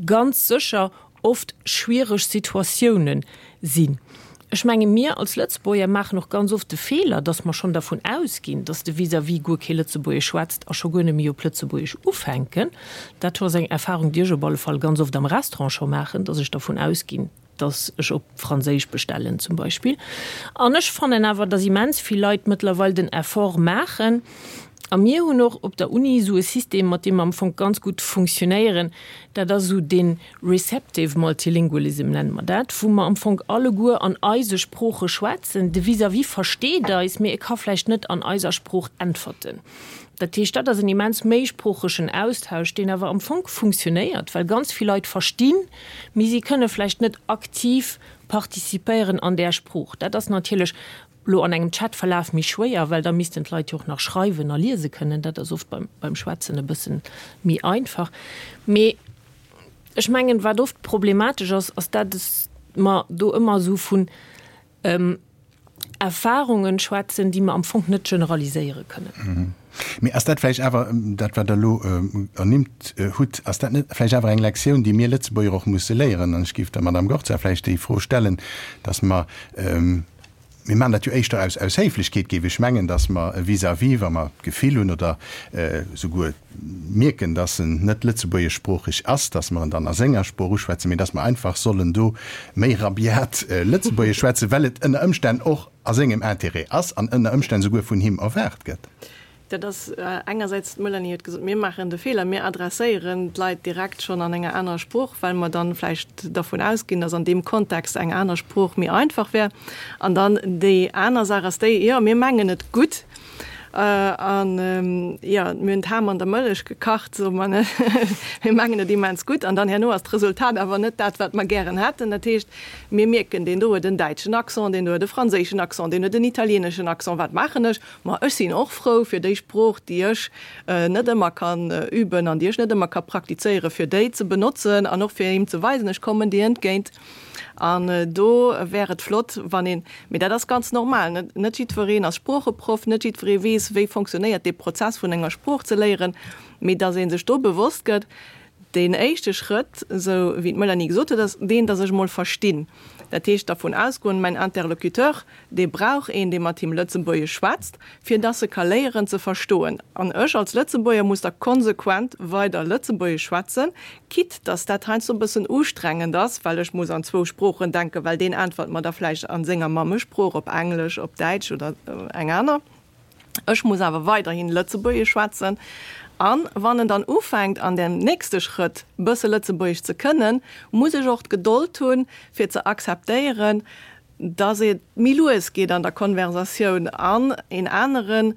Speaker 4: ganz sécher. oft schwiereg Situatiounen sinn. Ech menge mir als Lëtzebuerger maachen och ganz oft de Feeler, datt mer schonn dervun ausginn, datt de Vis-à-vis guer kee Lëtzebuergesch schwätzt a scho guer net méi op Lëtzebuergesch ufänken. Dat ass eng Erfahrung, déi ech op alle Fall ganz oft am Restaurant scho maachen, datt ech dervun ausginn, datt ech op Franséisch bestellen zum Beispill. An ech fannen awer, datt immens vill Leit mëttlerweil den Effort maachen. A mir hunn och op der Uni esou e System, mat deem mer am Fong ganz gutt funktionéieren, dat ass esou dee receptive multilingualism nenne mer dat, wou mer am Fong alleguer an eise Sprooche schwätzen. De Vis-à-vis versteet eis, mee e ka vläicht net an eiser Sprooch äntwerten. Dat heescht, dat ass en immens méisproochegen Austausch, deen awer am Fong funktionéiert, well ganz vill Leit verstinn, mee si kënne vläicht net aktiv participéieren an där Sprooch. Dat ass natierlech elo an engem Chatverlaf méi schwéier, well da missten d'Leit jo och nach schreiwen a liese kënnen. Dat ass oft beim Schwätzen e bëssen méi einfach. Mee ech mengen, wat oft problematesch ass, ass dat mer do ëmmer esou vun Erfahrungen schwätzen, déi mer am Fong net generaliséiere kënnen.
Speaker 2: Mee ass dat vläicht awer, dat wat Der elo ernimmt hutt, ass dat net vläicht awer eng Lektioun, déi mir Lëtzebuerger och musse léieren? An ech géif der Madame Gorza vläicht déi Fro stellen, dass mer, mir maachen dat jo éischter aus aus Héiflechkeet, géif ech mengen, dass mer e vis-à-vis, wa mer d'Gefill hunn oder souguer mierken, dass en net lëtzebuergeschsproocheg ass, dass mer en dann a senger Sprooch uschwätzen, mee dass mer einfach sollen do méi rabiat Lëtzebuergesch schwätzen, well et ënner Ëmstänn och a sengem Intérêt ass an ënner Ëmstänn souguer vun him erwaart gëtt.
Speaker 1: Dat ass engersäits, d'Melanie huet gesot, mir maachen de Feeler, mir adresséieren d'Leit direkt schonn an enger anerer Sprooch, well mer dann vläicht dervun ausginn, dass an deem Kontext eng aner Sprooch méi einfach wär. An dann déi aner Saach ass déi, jo, mir mengen et gutt, An jo, mir hunn d'Ham an der Mëllech gekacht, soe mer, ne? Mir mengen et immens gutt. An dann herno ass d'Resultat awer net dat, wat mer gären hätten. Dat heescht, mir mierken, deen do huet en däitschen Accent, deen do huet e franséischen Accent, deen huet en italieeneschen Accent. Wat maachen ech? Ma ech sinn och frou, fir déi Sprooch, déi ech net ëmmer kann üben an déi ech net ëmmer ka praktizéieren, fir déi ze benotzen an och fir him ze weisen, ech kommen dir entgéint. An do wär et flott, wann een, mee dat ass ganz normal, net, net jiddwereen ass Sproocheproff, net jiddweree weess, wéi fonctionnéiert dee Prozess vun enger Sprooch ze léieren, mee datt ee sech do bewosst gëtt, deen éischte Schrëtt, esou wéi d'Melanie gesot huet, ass deen, datt ech emol verstinn. Dat heescht dervun ausgoen, mäin Interlocuteur, Dee brauch een, dee mat him Lëtzebuergesch schwätzt, fir dass e ka léieren ze verstoen. An ech als Lëtzebuerger muss da konsequent weider Lëtzebuergesch schwätzen, quitte dass dat heiansdo e bëssen ustrengend ass, well ech muss an zwou Sproochen denken, well deen äntwert mer da vläicht a senger Mammesprooch, op Englesch, op Däitsch oder eng aner. Ech muss awer weiderhin Lëtzebuergesch schwätzen. An wann en dann ufänkt, an dem nächste Schrëtt bësse Lëtzebuergesch ze kënnen, muss ech och d'Gedold hunn, fir ze akzeptéieren, dass et méi lues geet an der Konversatioun an een anere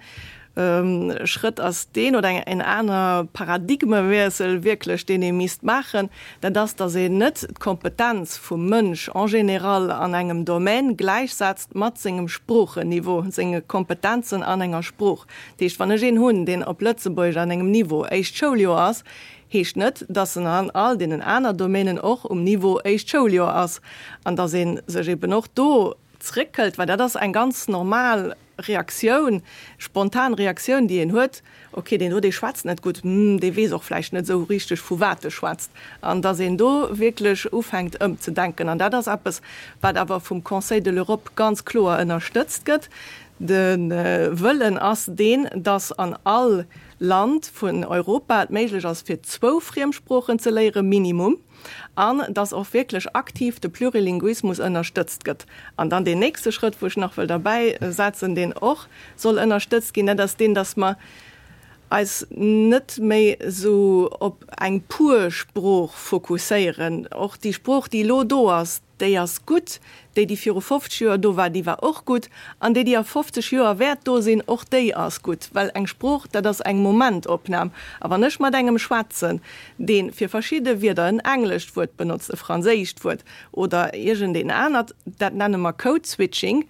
Speaker 1: Schrëtt ass deen, oder en aner Paradigmewiessel wierklech, deen ee misst maachen, dat ass, dass een net d'Kompetenz vum Mënsch en général an engem Domaine gläichsetzt mat sengem Sproochenniveau, senge Kompetenzen an enger Sprooch. Dat heescht, wann ech een hunn, deen op Lëtzebuergesch an engem Niveau éischt Schouljoer ass, heescht net, dass en an all deenen aner Domänen och um Niveau éischt Schouljoer ass an dass ee sech eben och do zréckhëlt, well dat ass eng ganz normal Reaktioun, spontan Reaktioun, déi een huet, okay, deen do, dee schwätzt net gutt, hm, dee weess och vläicht net esou richteg, vu wat e schwätzt, an dass een do wierklech ufänkt ëmzedenken. An dat ass eppes, wat awer vum Conseil de l'Europe ganz kloer ënnerstëtzt gëtt. De Wëllen ass deen, dass an all Land vun Europa et méiglech ass fir zwou Friemsproochen ze léieren, minimum, an dass och wierklech aktiv de Plurilinguismus ënnerstëtzt gëtt. An dann deen nächste Schrëtt, wou ech nach wëll derbäi setzen, deen och soll ënnerstëtzt ginn, dat ass deen, dass mer eis net méi esou op eng pur Sprooch fokusséieren. Och déi Sprooch, déi elo do ass, Déi ass gutt. Déi, déi viru 50 Joer do war, déi war och gutt. An déi, déi a 50 Joer wäert do sinn, och déi ass gutt. Well eng Sprooch, dat ass eng Momentopnam. A wann ech mat engem schwätzen, dee fir verschidde Wierder en englescht Wuert benotzt, e franséischt Wuert oder iergendeen anert, dat nenne mer Code-Switching,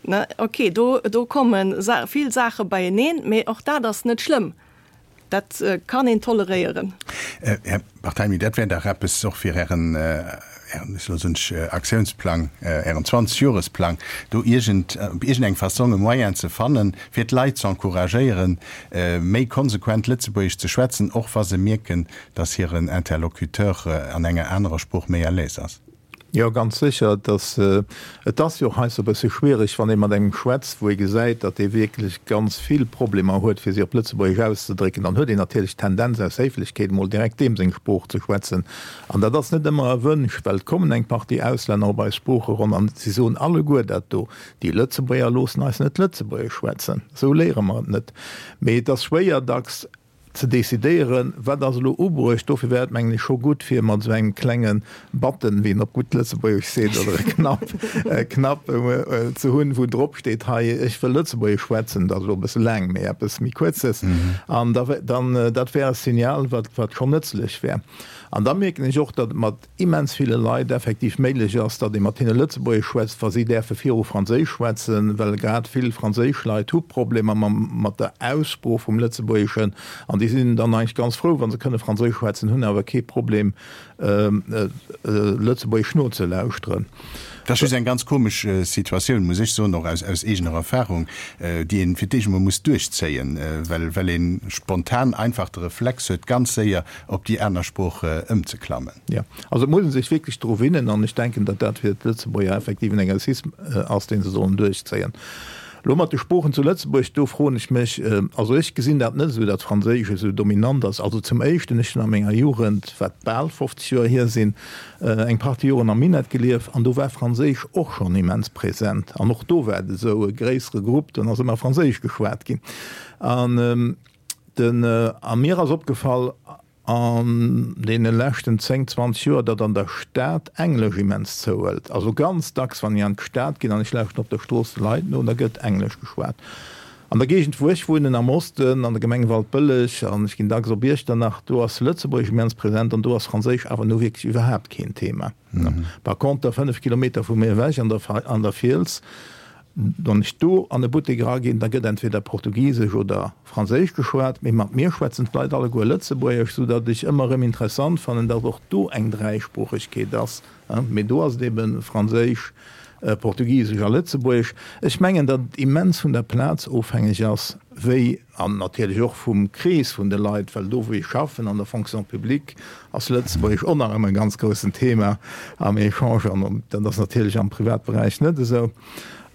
Speaker 1: ne, okay, do, do komme vill Saache beieneen, mee och dat ass net schlëmm. Dat kann een toleréieren.
Speaker 2: Här Barthelmy, dat wär dach eppes och fir Ären. Ären, ech elo soen ech Aktiounsplang, Ären 20 Joresplang, do iergend, op iergendeng Fassong e Moyen ze fannen, fir d'Leit ze encouragéieren, méi konsequent Lëtzebuergesch ze schwätzen, och wa se mierken, datt hiren Interlocuteur an enger anerer Sprooch méi à l'aise ass?
Speaker 3: Jo, ganz sécher. Et ass, et ass jo och heiansdo e bësse schwierig, wann ee mat engem schwätzt, wou ee gesäit, datt dee wierklech ganz vill Problemer huet, fir sech op Lëtzebuergesch auszedrécken. Dann huet een natierlech d'Tendenz, aus Héiflechkeet emol direkt deem seng Sprooch ze schwätzen. An dat ass net ëmmer erwünscht, well et kommen eng Partie Auslänner op eis Sproocheronn an si soen alleguer dat do, Déi Lëtzebuerger loossen eis net Lëtzebuergesch schwätzen, esou léiere mer et net. Mee et ass schwéier dacks ze decidéieren, wat ass elo ubruecht. Dofir wär et, mengen ech, scho gutt, fir mat esou engem klenge Button, wéi een op gutt Lëtzebuergesch seet, oder e Knapp, e Knapp ze hunn, wou drop steet, hei, ech wëll Lëtzebuergesch schwätzen, dat ass elo e bësse laang, mee eppes méi Kuerzes. An da, dann, dat wär e Signal, wat, wat schonn nëtzlech wär. An da mierken ech och, datt et mat immens ville Leit effektiv méiglech ass, datt ee mat hinne Lëtzebuergesch schwätzt, wa si däerfe viru Franséisch schwätzen, well grad vill franséisch Leit hu Problemer mam, mat der Aussprooch vum Lëtzebuergeschen an déi sinn dann eigentlech ganz frou, wa se kënne Franséisch schwätzen, hunn awer kee Problem, Lëtzebuergesch nozelauschteren.
Speaker 2: Dat ass just eng ganz komesch Situatioun, muss ech soen, och aus, aus eegener Erfahrung, déi een fir d'éischt emol muss duerchzéien, well, well ee spontan einfach de Reflex huet, ganz séier op déi aner Sprooch ëmzeklammen.
Speaker 3: Jo, also et muss ee sech wierklech dru winnen an ech denken, datt dat fir d'Lëtzebuerger effektiv en Exercice ass, dee se sollen duerchzéien. Elo mat de Sproochen zu Lëtzebuerg, do froen ech mech, also ech gesinn dat net esou, datt Franséisch esou dominant ass. Also zum Éischten, ech hunn a menger Jugend, wat bal 50 Joer hier sinn, eng Partie Joren am Minett gelieft an do war Franséisch och schonn immens present an och do war et esou e gréissere Grupp, do ass ëmmer Franséisch geschwat ginn. An Den, a mir ass opgefall an deene leschten 10, 20 Joer, datt an der Stad Englesch immens zouhëlt. Also ganz dacks, wann ech an d'Stad ginn an ech lauschten op der Strooss de Leit no, da gëtt Englesch geschwat. An der Géigend, wou ech wunnen, am Osten, an der Gemeng Waldbëlleg, an ech ginn dacks op Iechternach, do ass Lëtzebuergesch immens present an do ass Franséisch awer nu wierklech iwwerhaapt keen Thema. Par conter, 5 Kilometer vu mir ewech an der, an der Fiels, Wann ech do an e Buttek eraginn, da gëtt entweder Portugisesch oder Franséisch geschwat, mee mat mir schwätzen d'Leit alleguer Lëtzebuergesch, soudatt ech ëmmer erëm interessant fannen, datt och do eng Dräisproochegkeet ass. Mee do ass et ebe Franséisch, Portugisesch a Lëtzebuergesch. Ech mengen, datt et immens vun der Plaz ofhängeg ass, wéi, an natierlech och vum Krees vun de Leit, well do wou ech schaffen, an der Fonction publique, ass Lëtzebuergesch och nach ëmmer e ganz groussen Thema am Echange an dat ass natierlech am Privatberäich net esou.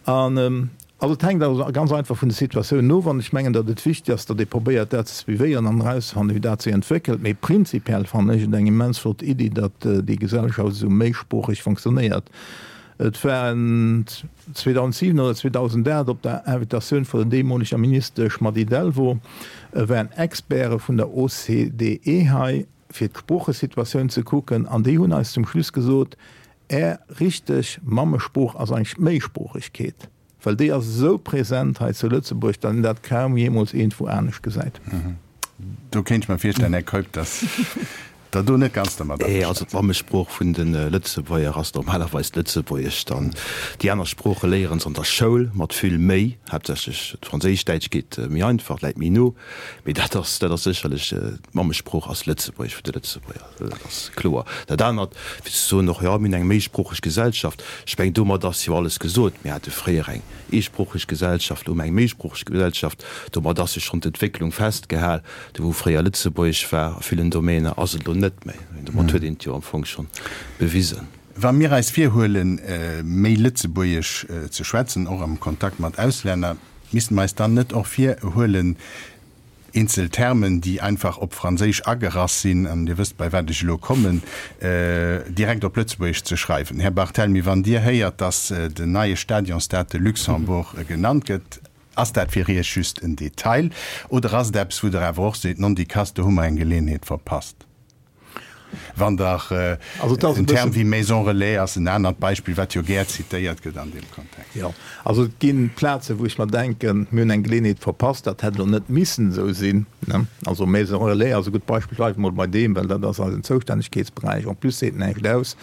Speaker 3: An also et hänkt also ganz einfach vun de Situatiounen of an ech mengen, datt et wichteg ass, datt ee probéiert dat ze suivéieren an erauszefannen, wéi dat sech entwéckelt. Mee prinzipiell fannen ech et eng immens flott Iddi, datt déi Gesellschaft esou méisproocheg fonctionnéiert. Et war 2007 oder 2008 op der Invitatioun vun der deemoleger Ministesch Mady Delvaux, waren Experte vun der OCDE hei, fir d'Sproochesituatioun ze kucken, an déi hunn eis zum Schluss gesot, Är richteg Mammesprooch ass eigentlech d'Méisproochegkeet, well déi ass esou present hei zu Lëtzebuerg, datt een dat kaum jeemools iergendwou anescht gesäit.
Speaker 2: Do kéint ech mer virstellen, Här Keup, datt Der do net ganz dermat
Speaker 5: averstane Also d'Mammesprooch vun de Lëtzebuerger ass normalerweis d'Lëtzebuergescht an déi aner Sprooche léieren se an der Schoul mat vill Méi, haaptsächlech d'Franséischt. Däitsch geet méi einfach, läit méi no, mee dat ass, dat ass sécherlech, d'Mammesprooch ass Lëtzebuergesch vun de Lëtzebuerger, dat ass kloer. Dat anert, fir ze soen och, jo, mir hunn eng méisproocheg Gesellschaft, ech mengen, domat ass jo alles gesot. Mir hate fréier eng eesproocheg Gesellschaft, elo hu mer eng méisproocheg Gesellschaft. Domat ass jo schonn d'Entwécklung festgehal. Do wou fréier Lëtzebuergesch war a villen Domäner, ass et elo net méi. Domat huet een et jo am Fong schonn bewisen.
Speaker 2: Wa mir eis virhuelen, méi Lëtzebuergesch ze schwätzen, och am Kontakt mat Auslänner, misste mer eis dann net och virhuelen, eenzel Termen, déi einfach op Franséisch agerass sinn, an Dir wësst, bei wat ech elo kommen, direkt op Lëtzebuergesch ze schreiwen? Här Barthelmy, wann Dir héiert, dass den neie Stadion Stade de Luxembourg genannt gëtt, Ass dat fir Iech just en Detail oder ass et eppes, wou Der awer och seet, Nondikass, do hu mer eng Geleeënheet verpasst? Wann Der en Term wéi Maison relais ass en anert Beispill, wat jo gär zitéiert gëtt an deem Kontext.
Speaker 3: Jo, also et gi Plazen, wou ech mer denken, mir hunn eng Geleeënheet verpasst, dat hätt elo net missen esou sinn. Also Maison relais ass e gutt Beispill, bleiwe mol bei deem, well dat ass eisen Zoustännegkeetsberäich. En plus seet näischt aus.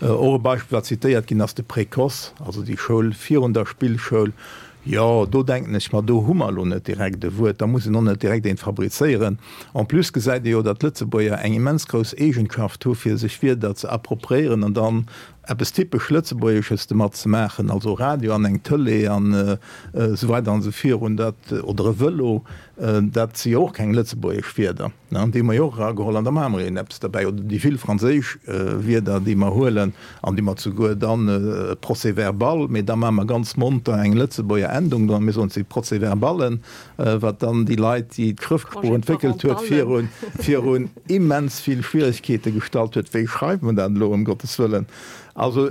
Speaker 3: Och e Beispill, wat zitéiert ginn ass, de Précoce, also déi Schoul virun der Spillschoul. Jo, do denken ech mer, do hu mer elo net direkt e Wuert, da muss een och net direkt eent fabrizéieren. En plus gesäit ee jo, datt d'Lëtzebuerger eng immens grouss Eegenschaft hu fir sech Wierder ze appropriéieren an dann eppes typesch Lëtzebuergesches domat ze maachen, also Radio an eng Tëlee an esou weider an esou virun, dat, oder e Vëlo, dat si jo och keng lëtzebuergesch Wierder. Déi hu mer jo och erageholl an da maache mer een eppes derbäi. Oder déi vill franséisch Wierder, déi mer huelen an déi mer souguer dann Procès-verbal, mee da maache mer ganz monter eng Lëtzebuerger Endung dran, mir soen, et si Procès-verballen, wat dann déi Leit, déi d'Schrëftsprooch entwéckelt huet, virun, virun immens vill Schwieregkeete gestallt huet. Wéi schreift mer dat elo, ëm Gottes wëllen? Also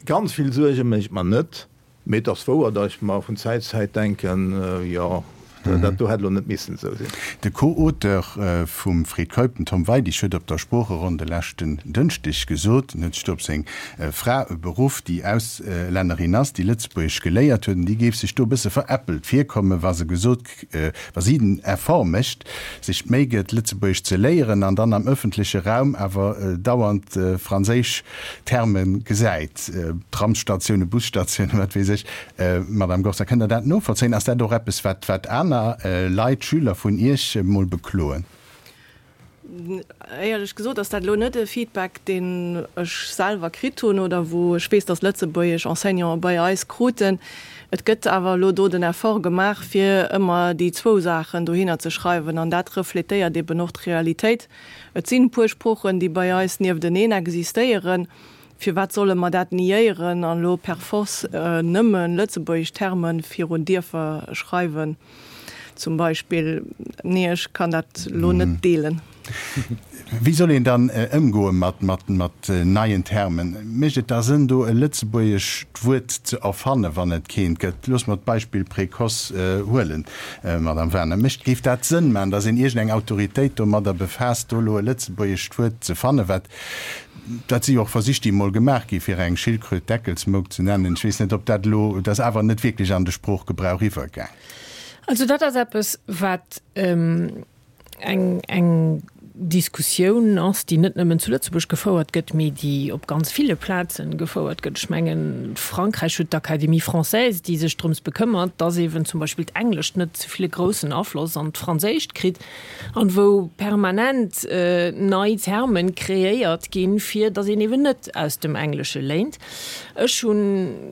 Speaker 3: ganz vill Suerge mécht mer net. Mee et ass wouer, datt ech mer vun Zäit zu Zäit denken, jo, dat do hätt elo net missen esou sinn.
Speaker 2: De Co-Auteur vum Fred Keup, den Tom Weidig, huet op der Sproocheronn de leschten Dënschdeg gesot, en huet sech do op seng Fra beruff, déi Auslännerin ass, déi Lëtzebuergesch geléiert huet, an déi géif sech do e bësse veräppelt virkommen, wa se gesot, wa si den Effort mécht, sech d'Méi gëtt, Lëtzebuergesch ze léieren an dann am ëffentleche Raum awer dauernd franséisch Terme gesäit, Tramsstatiounen, Busstatiounen, wat weess ech. Madame Gorza, kënnt Der dat novollzéien? Ass dat och eppes, wat wat aner Leit, Schüler vun Iech emol bekloen?
Speaker 1: Éierlech gesot ass dat elo net e Feedback, deen ech selwer kritt hunn oder wou ech weess, datt lëtzebuergesch Enseignanten bei eis kruten. Et gëtt awer elo do den Effort gemaach, fir ëmmer déi zwou Saachen dohinner ze schreiwen an dat refletéiert eben och d'Realitéit. Et sinn e puer Sproochen, déi bei eis niefteneen existéieren. Firwat solle mer dat niéieren an elo per force nëmme lëtzebuergesch Terme virun Dierfer schreiwen zum Beispill? Nee, ech kann dat elo net deelen.
Speaker 2: Wéi soll een dann ëmgoe mat neien Termen? Mécht et da Sënn, do e lëtzebuergescht Wuert ze erfannen, wann et keent gëtt? Loosse mer d'Beispill Précoce huelen, Madame Wagener. Mécht, géif dat Sënn maachen, datt een iergendeng Autoritéit domadder befaasst, do elo e lëtzebuergescht Wuert ze fannen, wat Dat si jo och Versich, déi emol gemaach gi fir eng Schildkröt Deckelsmouk ze nennen. Ech weess net, ob dat elo, dat ass awer net wierklech an de Sproochgebrauch iwwergaang.
Speaker 4: Also dat ass eppes, wat eng, eng Diskussioun ass, déi net nëmmen zu Lëtzebuerg gefouert gëtt, mee déi op ganz ville Plazen gefouert gëtt. Ech mengen, Frankräich huet d'Académie française, déi sech drëms bekëmmert, dass eeben zum Beispill d'Englescht net ze vill e groussen Afloss an d'Franséischt kritt. An wou permanent nei Termen kreéiert ginn, fir datt een eben net aus dem Englesche léint. Ech hunn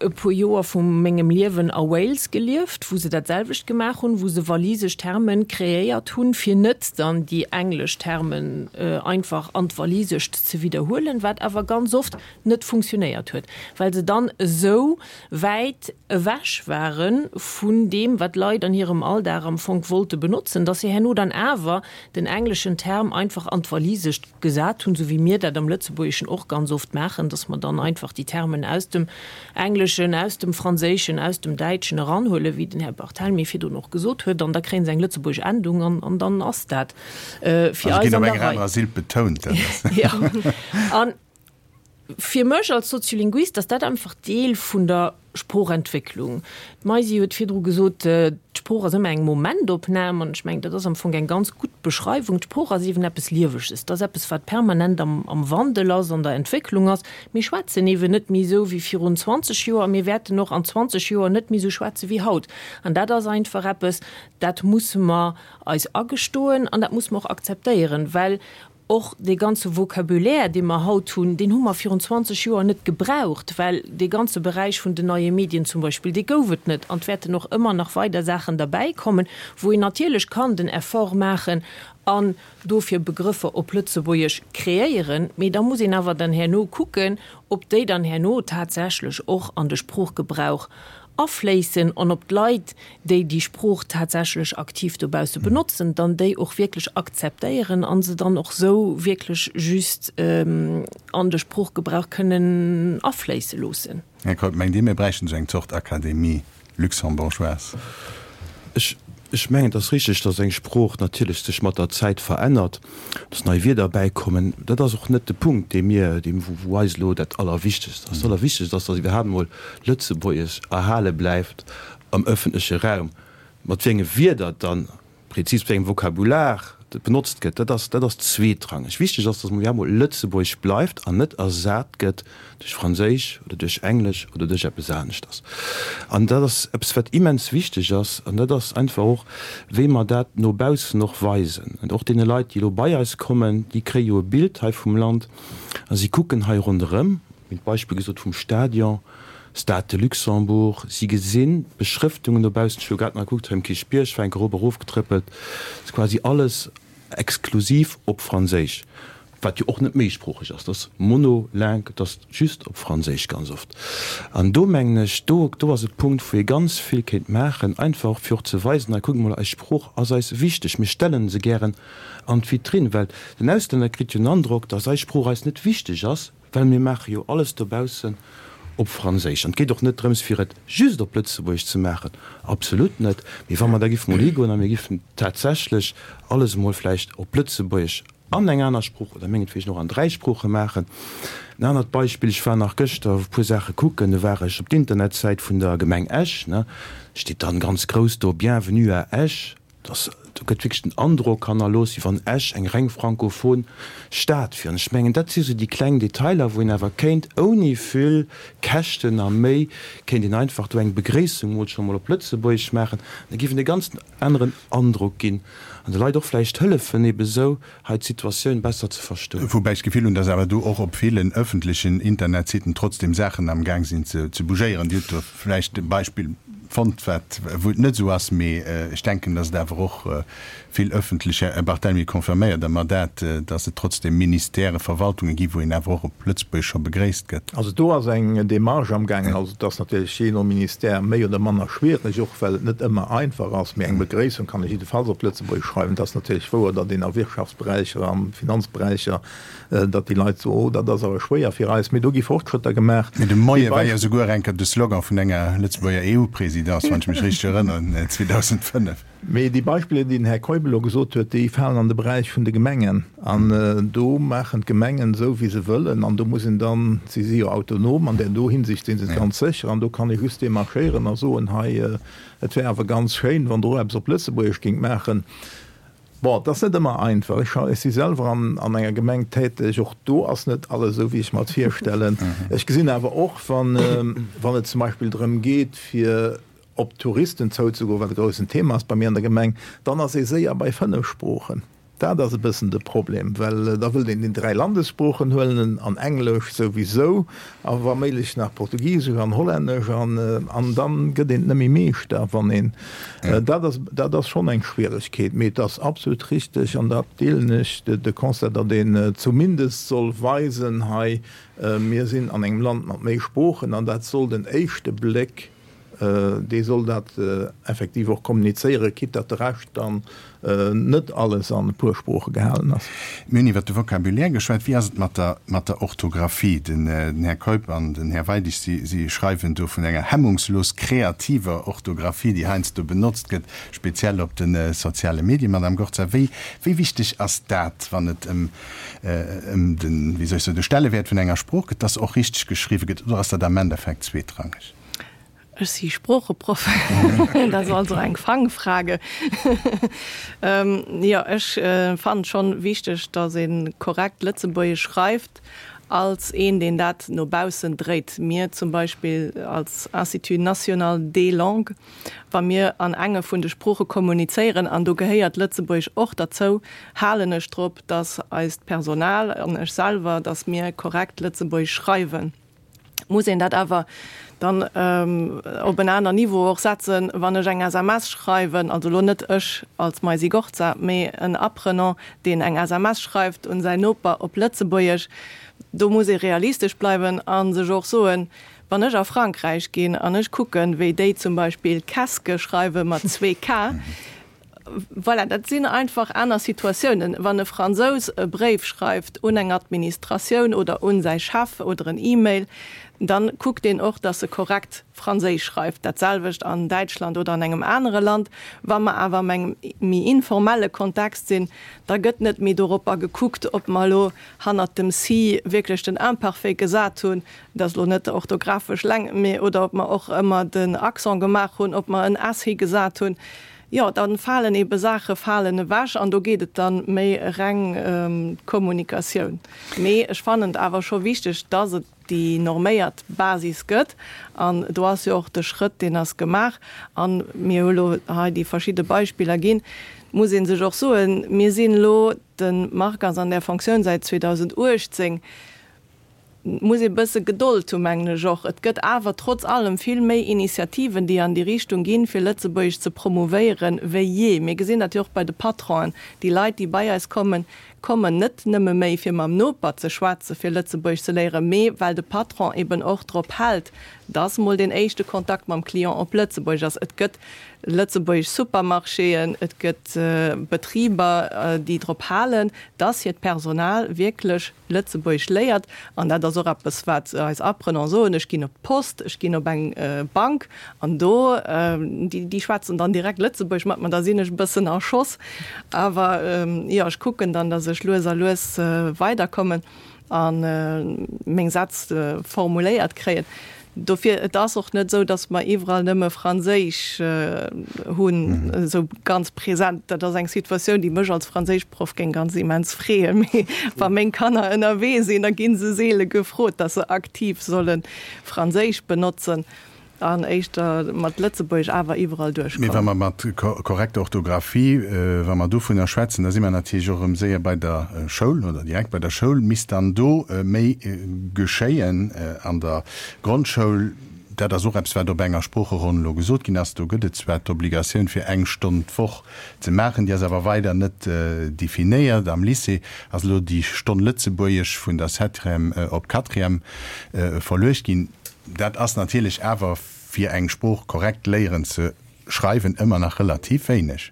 Speaker 4: e puer Joer vu mengem Liewen a Wales gelieft, wou se dat selwecht gemaach hunn, wou se walisesch Termen kreéiert hunn, fir net dann déi englesch Termen einfach an d'Walisescht ze widderhuelen, wat awer ganz oft net funktionéiert huet, well se dann esou wäit ewech ware vun deem, wat d'Leit an hirem Alldag am Fong wollte benotzen, dass se herno dann awer den engleschen Term einfach an d'Walisescht gesat hunn, esou wéi mir dat am Lëtzebuergeschen och ganz oft maachen, dass mer dann einfach déi Termen aus dem Engleschen, aus dem Franséischen, aus dem Däitschen eranhuelen, wéi den Här Barthelmy virdrun och gesot huet, an da kréie se eng lëtzebuergesch Endung an dann ass dat fir eis an der Rei. Fir mech als Soziolinguist ass dat einfach Deel vun der Sproochentwécklung. D'Maisy huet virdru gesot, d'Sprooch ass ëmmer eng Momentopnam an ech mengen, dat ass am Fong eng ganz gutt Beschreiwung. D'Sprooch ass eeben eppes Lieweges, dat ass eppes, wat permanent am am Wandel ass, an der Entwécklung ass. Mir schwätzen eeben net méi esou wéi virun 20 Joer a mir wäerten och an 20 Joer net méi esou schwätze wéi haut. An dat ass einfach eppes, dat musse mer eis agestoen an dat musse mer och akzeptéieren, well Och dee ganze Vocabulaire, dee mer haut hunn, deen hu mer virun 20 Joer net gebraucht, well dee ganze Beräich vun den neie Medien zum Beispill, dee gouf et net. An et wäerten och ëmmer nach weider Saachen derbäikommen, wou een natierlech kann den Effort maachen an dofir Begrëffer op Lëtzebuergesch kreéieren. Mee da muss een awer dann herno kucken, ob déi dann herno tatsächlech och an de Sproochgebrauch afléissen an ob d'Leit, déi déi Sprooch tatsächlech aktiv dobausse benotzen, dann déi och wierklech akzeptéieren a se dann och sou wierklech just an de Sproochgebrauch kënnen afléisse loossen.
Speaker 2: Här Keup, mengt Dir, mir bräichten esou eng Zort Académie luxembourgeoise?
Speaker 5: Ech Ech mengen, et ass richteg, datt eng Sprooch natierlech sech mat der Zäit verännert, datt nei Wierder bäikommen. Dat ass och net de Punkt, dee mir, dee wou eis elo dat Allerwichtegst ass. Dat Allerwichtegst ass, datt iwwerhaapt emol Lëtzebuergesch erhale bleift am ëffentleche Raum. Mat wéi enge Wierder dann, prezis, wéi engem Vokabular. benotzt gëtt, dat ass, dat ass zweetrangeg. Wichteg ass, datt mol emol Lëtzebuergesch bleift an net ersat gëtt duerch Franséisch oder duerch Englesch oder duerch eppes aneschters. An dat ass eppes, wat immens wichteg ass. An dat ass einfach och, wéi mer dat no baussen och weisen. An och deene Leit, déi elo bei eis kommen, déi kréie jo e Bild hei vum Land a si kucken hei ronderëm, mir hunn d'Beispill gesot vum Stadion, Stade de Luxembourg, si gesinn d'Beschrëftungen dobaussen, ech hu grad nach gekuckt, hei um Kierchbierg war eng Kéier erop erofgetrëppelt, ass quasi alles exklusiv op Franséisch, wat jo och net méisproocheg ass, dat ass monolingue, dat ass just op Franséisch ganz oft. An do mengen ech, do do ass e Punkt, wou ee ganz vill kéint maachen, einfach fir och ze weisen, hei kuckt mol, eis Sprooch ass eis wichteg, mir stellen se gären an d'Vitrinn, well den Auslänner kritt jo den Androck, datt eis Sprooch eis net wichteg ass, Well mir maache jo alles dobaussen op Franséisch. An et geet och net drëms, fir et just op Lëtzebuergesch ze maachen, absolut net. Mee wa mer da giffen emol higoen a mir giffen tatsächlech alles emol vläicht op Lëtzebuergesch an eng aner Sprooch oder mengetwegen och an dräi Sprooche maachen. En anert Beispill, Ech war nach gëschter e puer Saache kucken, do war ech op d'Internetsäit vun der Gemeng Esch, ne, steet dann ganz grouss do, Bienvenue à Esch. Dass, do gëtt wierklech den Androck hannerlooss, wéi wann Esch eng reng frankophon Stad wier. An ech mengen, dat si sou déi kleng Detailer, wou een awer kéint ouni vill Käschten a Méi, kéint een einfach do eng Begréissung mol scho mol op Lëtzebuergesch maachen. Da géif een e ganz aneren Androck ginn an de Leit och vläicht hëllefen, ebe sou hei d'Situatioun besser ze verstoen.
Speaker 2: Woubäi ech d'Gefill hunn, dass awer do och op villen öffentlechen Internetsiten trotzdem Saachen am Gaang sinn ze bougéieren. Dir hutt do vläicht e Beispill fonnt, wat, wou et net esou ass, mee ech denken, dass et awer och vill öffentlech, Här Barthelmy, confirméiert Der mer dat, dass et trotzdem Ministèrë, Verwaltunge gi wou een awer och op Lëtzebuergesch scho begréisst gëtt?
Speaker 3: Also do ass eng Démarche amgaangen. Also et ass natierlech jee no Ministère méi oder manner schwierig, och well et net ëmmer einfach ass, mee eng Begréissung kann ech jiddefalls op Lëtzebuergesch schreiwen. Et ass natierlech wouer, datt een a Wirtschaftsberäicher, a Finanzberäicher, datt déi Leit soen, oh, dat ass awer schwéier fir eis, mee do gi Fortschrëtter gemaach.
Speaker 2: Mee de Moie war jo souguer eng Kéier de Slogan vun enger Lëtzebuerger EU-Présidence, wann ech mech richteg erënneren, 2005.
Speaker 3: Mee déi Beispiller, déi den Här Keup elo gesot huet, déi falen an de Beräich vun de Gemengen. An do maachen d'Gemengen esou, wéi se wëllen. An do muss een dann, si si jo autonom an där do Hinsicht si se et ganz sécher, an do kann ee just demarchéieren a soen, hei, et wär awer ganz schéin, wann Der och eppes op Lëtzebuergesch géingt maachen. Bon, et ass net ëmmer einfach. Ech, ech si selwer an, an enger Gemeng täteg. Och do ass net alles esou, wéi ech mer et virstellen. Ech gesinn awer och, wann, wann et zum Beispill drëm geet, fir op Touristen zouzegoen, wat e groussen Thema ass bei mir an der Gemeng, dann ass ee séier bei 5 Sproochen. Dat ass e bëssen de Problem, well da wëllt een déi 3 Landessproochen huelen an Englesch souwisou a wa méiglech nach Portugisesch an Hollännesch an an dann gëtt een et net méi Meeschter, wann een dat ass dat ass schonn eng Schwieregkeet. Mee et ass absolut richteg an dat deelen ech, de Constat, datt een zumindest soll weisen, hei mir sinn an engem Land mat méi Sproochen an dat soll den éischte Bléck Dee soll dat effektiv och kommunizéieren, quitte datt de Rescht dann net alles an e puer Sprooche gehalen ass.
Speaker 2: Mir hunn iwwert de Vocabulaire geschwat. Wéi ass et mat der, mat der Orthografie? Den Här Keup an den Här Weidig, si, si schreiwen do vun enger hemmungslos kreativer Orthografie, déi heiansdo benotzt gëtt, speziell op de soziale Medien. Madame Gorza, wéi, wéi wichteg ass dat, wann et ëm, ëm den, wéi soll ech soen, de Stellewäert vun enger Sprooch gëtt, dass och richteg geschriwwen gëtt, oder ass dat am Endeffekt zweetrangeg?
Speaker 1: Ech si Sproocheproff, dat ass also eng Fangfrage. Jo, ech fannen schonn wichteg, datt ee korrekt Lëtzebuergesch schreift, als een, deen dat no baussen dréit. Mir zum Beispill als Institut national des langues, wa mir an enge vun de Sprooche kommunizéieren, an do gehéiert Lëtzebuergesch och derzou, halen ech drop, datt eist Personal an ech selwer, datt mir korrekt Lëtzebuergesch schreiwen. Muss een dat awer dann op en aner Niveau och setzen, wann ech eng SMS schreiwen, also elo net ech als Maisy Gorza, mee en Apprenant, deen eng SMS schreift un säin Noper op Lëtzebuergesch, do muss ee realistesch bleiwen a sech och soen, wann ech a Frankräich ginn an ech kucken, wéi déi zum Beispill Keske schreiwe mat 2 K, Voilà, dat sinn einfach aner Situatiounen. Wann e Fransous e Bréif schreift un eng Administratioun oder un säi Chef oder en E-Mail, dann kuckt deen och, dass e korrekt Franséisch schreift. Dat selwecht an Däitschland oder an engem anere Land. Wa mer awer am engem méi informelle Kontext sinn, da gëtt net méi doropper gekuckt, ob mer elo hannert dem si wierklech den Imparfait gesat hunn, dat ass elo net orthografesch leng, mee oder ob mer och ëmmer den Accent gemaach hunn, ob mer en s higesat hunn. Jo, da falen ebe Saache falen ewech an do geet et dann méi reng ëm d'Kommunikatioun. Mee ech fannen et awer scho wichteg, dass et déi norméiert Basis gëtt an do ass jo och de Schrëtt, deen ass gemaach an mir hu lo hei déi verschidde Beispiller ginn. Et muss ee sech och soen, mir sinn elo, de Marc ass an där Fonctioun säit 2018, Et muss ee bësse Gedold hu mengen ech och. Et gëtt awer trotz allem vill méi Initiativen, déi an déi Richtung ginn, fir Lëtzebuergesch ze promouvéieren, wéi jee. Mir gesinn dat jo och bei de Patronen. Déi Leit, déi bei eis kommen, kommen net nëmme méi, fir mam Noper ze schwätzen, fir Lëtzebuergesch ze léieren, mee well de Patron eben och drop hält, dass mol deen éischte Kontakt mam Client op Lëtzebuergesch ass. Et gëtt lëtzebuergesch Supermarchéen, et gëtt Betriber, déi drop halen, dass hiert Personal wierklech Lëtzebuergesch léiert, an dat ass och eppes, wat eis Apprenants soen, ech ginn op d'Post, ech ginn op eng Bank, an do, déi schwätzen dann direkt Lëtzebuergesch mat mer, da sinn ech e bëssen a Schoss. Awer jo, ech kucken dann, datt ech lues a lues weiderkommen a meng Sätz formuléiert kréien. Dofir, et ass och net esou, datt mer iwwerall nëmme Franséisch hunn, esou ganz present. Dat ass eng Situatioun, déi mech als Franséischproff géing ganz immens freeën. Mee wa meng Kanner ënnerwee sinn, da gi se seele gefrot, datt se aktiv solle Franséisch benotzen an éischter mat Lëtzebuergesch awer iwwerall
Speaker 2: duerchkommen. Mee wa mer mat korrekter Orthografie, wa mer dovunner schwätzen, da si mer natierlech och erëm séier bei der Schoul oder direkt bei der Schoul. Misst dann do méi geschéien an der Grondschoul? Dat ass och eppes, wat op enger Sproocheronn elo gesot ginn ass. Do gëtt et zwar d'Obligatioun, fir eng Stonn d'Woch ze maachen, déi ass awer weider net definéiert. Am Lycée ass elo déi Stonn Lëtzebuergesch vun der Septième op d'Quatrième verluecht ginn. Dat ass natierlech awer, fir eng Sprooch korrekt léieren ze schreiwen, ëmmer nach relativ wéineg.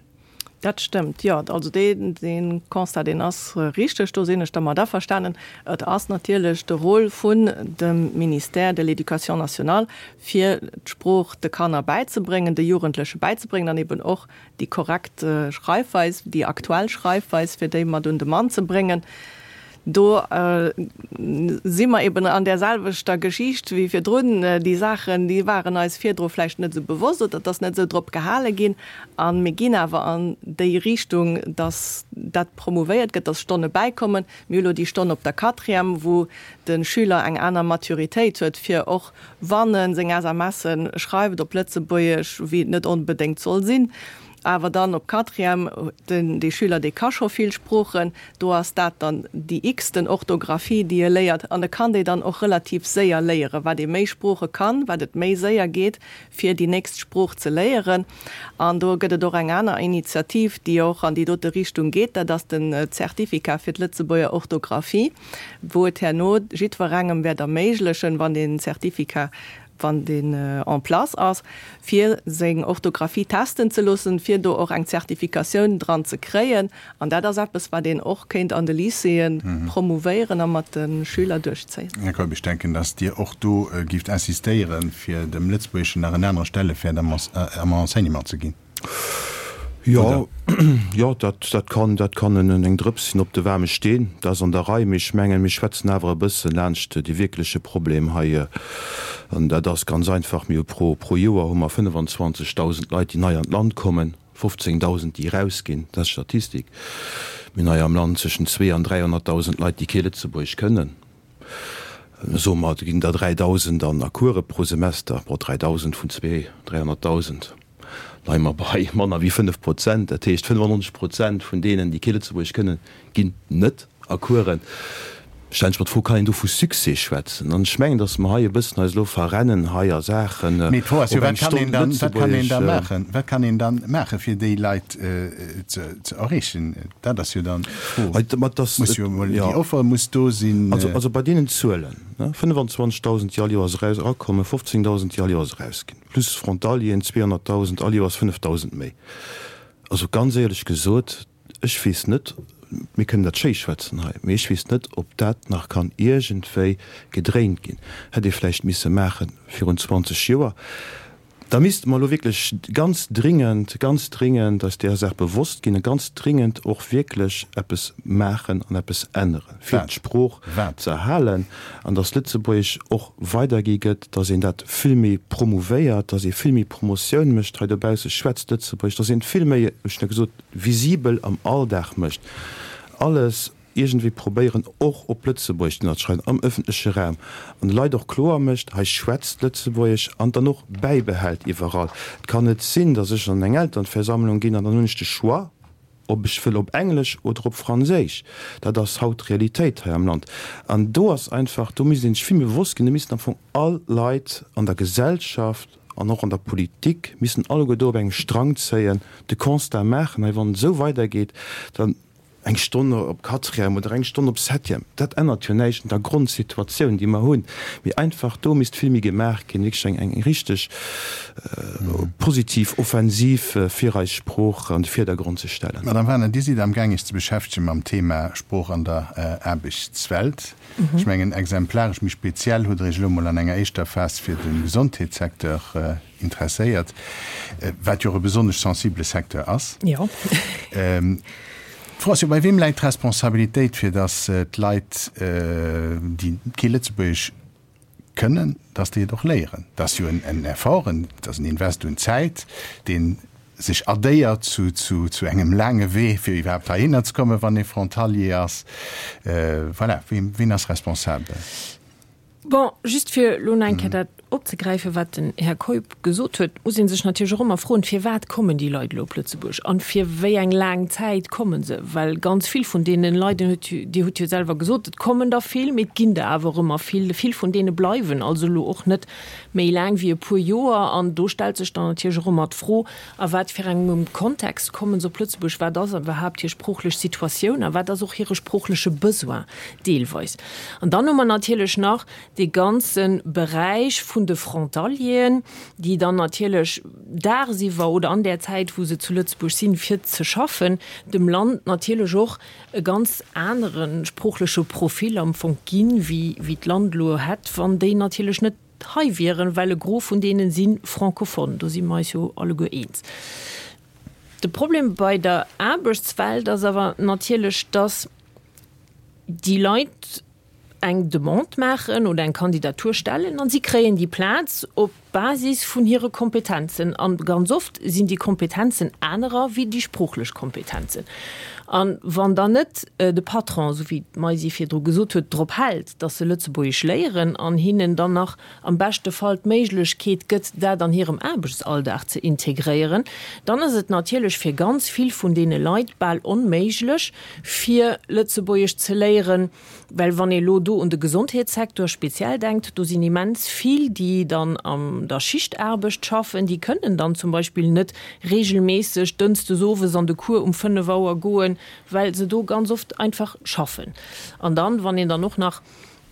Speaker 1: Dat stëmmt, jo. Also dee Constat, deen ass richteg, do sinn ech dermat averstanen. Et ass natierlech de Rôle vun dem Ministère de l'Éducation nationale, fir d'Sprooch de Kanner bäizebréngen, de Jugendleche bäizebréngen an eben och déi korrekt Schreifweis, déi aktuell Schreifweis, fir déi mat un de Mann ze bréngen. Do si mer eben an där selwechter Geschicht wéi virdrun. Déi Saachen, déi waren eis virdru vläicht net esou bewosst oder et ass net esou drop gehale ginn. A mir ginn awer an déi Richtung, dass dat promouvéiert gëtt, dass Stonne bäikommen. Mir hu lo déi Stonn op der Quatrième, wou de Schüler eng aner Maturitéit huet, fir och wann e seng SMSe schreift op Lëtzebuergesch, wéi et net onbedéngt soll sinn, awer dann op Quatrième, den, dee Schüler, dee ka scho vill Sproochen, do ass dat dann déi x-ten Orthographie, déi e léiert, an e kann déi dann och relativ séier léieren. Wat ee méi Sprooche kann, wat et méi séier geet, fir déi nächst Sprooch ze léieren. An do gëtt et och eng aner Initiativ, déi och an déi dote Richtung geet, dat ass den Zertificat fir d'Lëtzebuerger Orthographie, wou et herno jiddwerengem wäert erméiglechen, wann deen Zertificat wann deen en place ass, fir seng Orthographie testen ze loossen, fir do och eng Zertifikatioun dran ze kréien. An dat ass eppes, wat een och kéint an de Lycéeë promouvéieren a mat de Schüler duerchzéien.
Speaker 2: Här Keup, ech denken, datt Dir och do gift insistéieren, fir dem Lëtzebuergeschen nach en anere Stelleväert am Enseignement ze ginn.
Speaker 5: Jo, jo, dat, dat kann, dat kann en, eng Drëps sinn op de waarme Steen. Dat ass an der Rei. Mee ech mengen, mir schwätzen awer e bësse laanscht dee wierkleche Problem hei. An dat ass ganz einfach, Mir hu pro, pro Joer hu mer 25.000 Leit, déi nei an d'Land kommen, 15.000, déi erausginn. Dat ass d'Statistik. Mir hunn hei am Land zwëschen zwee an 300.000 Leit, déi kee Lëtzebuergesch kënnen. Soe mer, et ginn der 3.000 an a Course pro Semester. Bon, 3.000 vun zwee, 300.000. Leie mer bei manner wéi 5 Prozent. Dat heescht, 95 Prozent vun deenen, déi kee Lëtzebuergesch kënnen, ginn net a Coursen. Stellen ech mer d'Fro, Kann een do vu Succès schwätzen? An ech mengen, datt mer hei e bëssen eis elo verrennen hei a Saachen,
Speaker 2: Mee d'Fro ass jo, wat kann een dann, wat kann een da maachen? Wat kann een dann maachen, fir déi Leit ze erreechen? Dat ass jo dann d'Fro. Muss jo emol, déi Offer muss do sinn.
Speaker 5: Also bei deenen Zuelen, 25.000, déi all Joers erakommen, 15.000, déi all Joers erausginn. Plus Frontalieren, 200.000, all Joers 5.000 méi. Also ganz éierlech gesot, ech weess net, mir kënnen dat schéi schwätzen hei, mee ech weess net, ob dat nach kann iergendwéi gedréint ginn. Hätt ee vläicht misse maache virun 20 Joer. Da misste mer elo wierklech ganz dringend, ganz dringend eis deeër Saach bewosst ginn a ganz dringend och wierklech eppes maachen an eppes änneren, fir d'Sprooch ze erhalen an dass Lëtzebuergesch och weidergi gëtt, dass een dat vill méi promouvéiert, dass ee vill méi Promotioun mécht hei dobausse, schwätzt Lëtzebuergesch, dass een et vill méi, ech hunn jo gesot, visibel am Alldag mécht. Alles iergendwéi probéieren och op Lëtzebuergesch ze ënnerschreiwen am ëffentleche Raum an de Leit och kloer mécht, hei schwätzt Lëtzebuergesch an dann och bäibehält iwwerall. Et kann net sinn, datt ech an eng Elternversammlung ginn an dann hunn ech de Choix, ob ech wëll op Englesch oder op Franséisch. Dat ass haut d'Realitéit hei am Land. An do ass einfach, do misst ee sech vill méi bewosst ginn, do missten am Fong all Leit an der Gesellschaft an och an der Politik missten alleguer do op engem Strang zéien, de Constat maachen, hei wann et esou weidergeet, dann, Eng Stonn op Quatrième oder eng Stonn op Septième, dat ännert jo näischt un der Grondsituatioun, déi mer hunn. Mee einfach do misst vill méi gemaach ginn, wierklech eng eng richteg positiv Offensiv, fir eis Sprooch an de Virdergrond ze stellen.
Speaker 2: Madame Wagener, Dir sidd amgaang Iech ze beschäftege mam Thema Sprooch an der Aarbechtswelt. Ech mengen, exemplaresch, méi speziell hutt Der Iech elo mol an enger éischter Phas fir de Gesondheetssecteur interesséiert, wat jo och e besonnesch sensibele Secteur ass.
Speaker 4: Jo.
Speaker 2: D'Fro ass jo, Bei weem läit d'Responsabilitéit, fir datt d'Leit, déi kee Lëtzebuergesch kënnen, datt déi et och léieren? Dat ass jo en Effort, et ass en Invest un Zäit, dee sech addéiert zu engem laange Wee, fir iwwerhaapt heihinner ze kommen, wann ee Frontalier ass. Voilà, wien ass responsabel?
Speaker 4: Bon, just fir elo nach eng Kéier dat opzegräifen, wat den Här Keup gesot huet, muss ee sech natierlech och ëmmer froen, Firwat kommen déi Leit elo op Lëtzebuerg an fir wéi eng laang Zäit komme se? Well ganz vill vun deene Leit, Dir hutt, Dir hutt jo selwer gesot, et kommen der vill, mee et ginn der awer och ëmmer vill. Vill vun deene bleiwen also elo och net méi laang wéi e puer Joer. An do stellt sech dann natierlech och ëmmer d'Fro, A wat fir engem Kontext kommen se op Lëtzebuerg? Wat ass iwwerhaapt hir sproochlech Situatioun a wat ass och hire sproochleche Besoin deelweis? An dann hu mer natierlech nach dee ganze Beräich vun de Frontalieren, déi dann natierlech dagsiwwer oder an där Zäit, wou se zu Lëtzebuerg sinn, fir ze schaffen, dem Land natierlech och e ganz anere sproochleche Profil am Fong ginn, wéi d'Land elo hätt, wann déi natierlech net hei wieren, well e Gros vun deene si francophone. Do si mer eis jo alleguer eens. De Problem bei der Aarbechtswelt ass awer natierlech, dass déi Leit eng Demande maachen oder eng Kandidatur stellen an si kréien déi Plaz op Basis vun hire Kompetenzen. An ganz oft sinn déi Kompetenzen anerer wéi déi sproochlech Kompetenzen. A wann dann net de Patron, esou wéi d'Maisy virdru gesot huet, drop hält, datt se Lëtzebuergesch léieren an hinnen dann nach am beschte Fall d'Méiglechkeet gëtt, dat an hirem Aarbechtsalldag ze integréieren, dann ass et natierlech fir ganz vill vun deene Leit bal onméiglech, fir Lëtzebuergesch ze léieren, well wann ee lo do un de Gesondheetssecteur speziell denkt, do sinn immens vill, déi dann an der Schichtaarbecht schaffen, déi kënnen dann zum Beispill net regelméisseg dënschdes owes an de Cours um 5 Auer goen, well se do ganz oft einfach schaffen. An dann, wann een dann och nach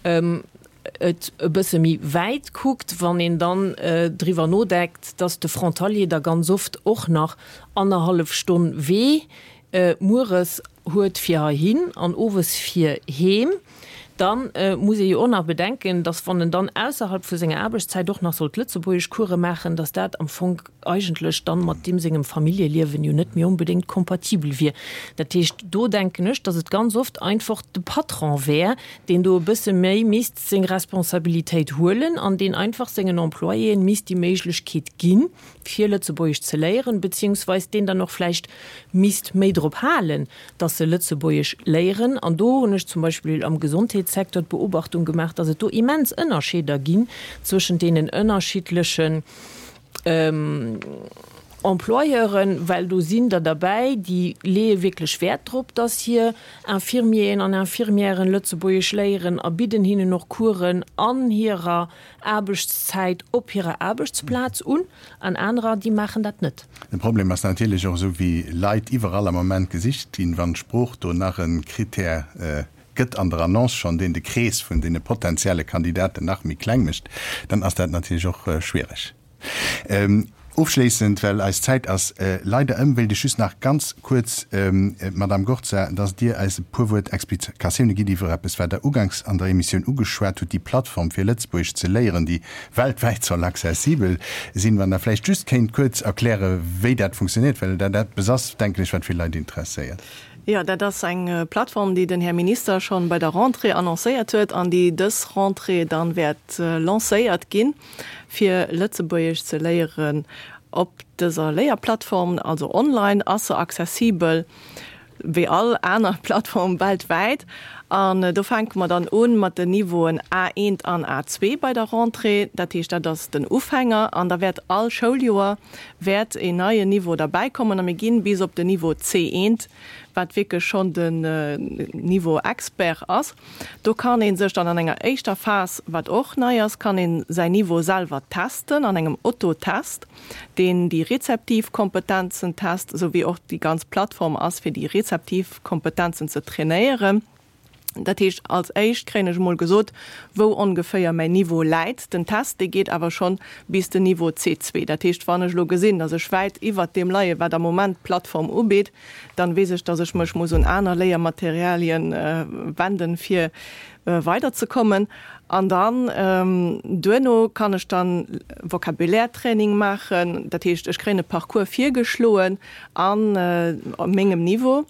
Speaker 4: et e bësse méi wäit kuckt, wann een dann driwwer nodeckt, dass de Frontalier da ganz oft och nach annerhallef Stonn Wee mueres huet fir heihin an owes fir heem, da muss ee jo och nach bedenken, dass wann en dann ausserhalb vu senger Aarbechtszäit och nach sollt Lëtzebuergeschcourse maachen, dass dat am Fong eigentlech dann mat deem sengem Familljeliewen jo net méi onbedéngt kompatibel wier. Dat heescht, do denken ech, dass et ganz oft einfach de Patron wär, deen do e bësse méi misst seng Responsabilitéit huelen an deen einfach sengen Employéen misst déi Méiglechkeet ginn, fir Lëtzebuergesch ze léieren, beziehungsweis deen dann och vläicht misst méi drop halen, dass se Lëtzebuergesch léieren. An do hunn ech zum Beispill am Gesondheetssecteur d'Beobachtung gemaach, dass et do immens Ënnerscheeder ginn zwëschent deenen ënnerschiddlechen Employeuren, well do sinn der derbäi, déi leeë wierklech Wäert drop, dass hir Infirmieren an Infirmièren Lëtzebuergesch léieren a bidden hinnen och Coursen an hirer Aarbechtszäit op hirer Aarbechtsplaz un, an anerer, déi maachen dat net.
Speaker 2: De Problem ass natierlech och, esou wéi Leit iwwerall am Moment gesicht ginn, wann d'Sprooch do nach e Krittär gëtt an der Annonce schonn, deen de Krees vun deene potenzielle Kandidaten nach méi kleng mécht, dann ass dat natierlech och schwiereg. Ofschléissend, well eis Zäit ass leider ëm, wéilt ech just nach ganz kuerz, Madamm Gorza, dass Dir eis e puer Wuert Explikatioune gitt iwwer eppes, wat Der uganks an der Emissioun ugeschwat hutt, déi Plattform fir Lëtzebuergesch ze léieren, déi weltwäit soll accessibel sinn. Wann Der vläicht just kéint kuerz erklären, wéi dat funktionéiert, well dat eppes ass, denken ech, wat vill Leit interesséiert.
Speaker 1: Jo, dat ass eng Plattform, déi den Här Minister schonn bei der Rentrée annoncéiert huet an déi dës Rentrée dann wäert lancéiert ginn, fir Lëtzebuergesch ze léieren op dëser Léierplattform. Also online ass se accessibel wéi all aner Plattform weltwäit. An do fänke mer dann u mat den Niveauen A1 an A2 bei der Rentrée. Dat heescht, dat ass den Ufänger. An da wäert all Schouljoer wäert een neien Niveau derbäikommen a mir ginn bis op den Niveau C1, wat wierklech schonn den Niveau Expert ass. Do kann ee sech dann an enger éischter Phas, wat och nei ass, kann ee säin Niveau selwer testen an engem Autotest, deen déi rezeptiv Kompetenzen test, esou wéi och déi ganz Plattform ass, fir déi rezeptiv Kompetenzen ze trainéieren. Dat heescht, als éischt kréien ech emol gesot, wou ongeféier mäin Niveau läit. Den Test, dee geet awer schonn bis den Niveau C2. Dat heescht, wann ech elo gesinn, datt ech wäit iwwert deem leien, wat am Moment d'Plattform ubitt, dann weess ech, datt ech mech muss un aner Léiermaterialien wenden, fir weiderzekommen. An dann duerno kann ech dann Vocabulaire-Training maachen. Dat heescht, ech kréien e Parcours virgeschloen a mengem Niveau.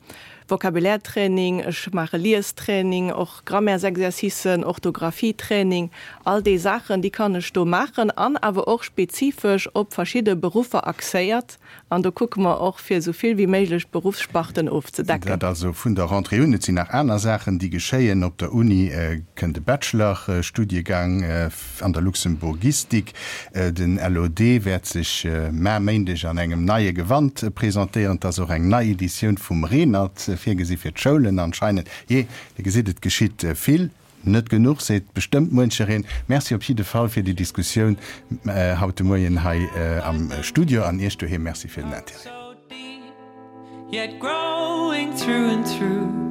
Speaker 1: Vocabulaire-Training, ech maache Liestraining, och Grammaires-Exercicen, Orthographie-Training, all déi Saachen, déi kann ech do maachen an awer och spezifesch op verschidde Beruffer axéiert. An do kucke mer och, fir esou vill wéi méiglech Beruffssparten ofzedecken.
Speaker 2: Dat also vun der Rentrée un. Et sinn nach aner Saachen, déi geschéien. Op der Uni kënnt e Bachelor-Studiegang an der Luxemburgistik. Den LOD wäert sech mar Méindeg an engem neie Gewand presentéieren. Et ass och eng nei Editioun vum Renert virgesi fir d'Schoulen anscheinend. Jee, Dir gesitt, et geschitt vill. Net genuch, seet bestëmmt muenchereen. Merci op jidde Fall fir déi Diskussioun haut de Moien hei am Studio an Iech doheem Merci fir den Interêt.
Speaker 6: Yet growing through and through.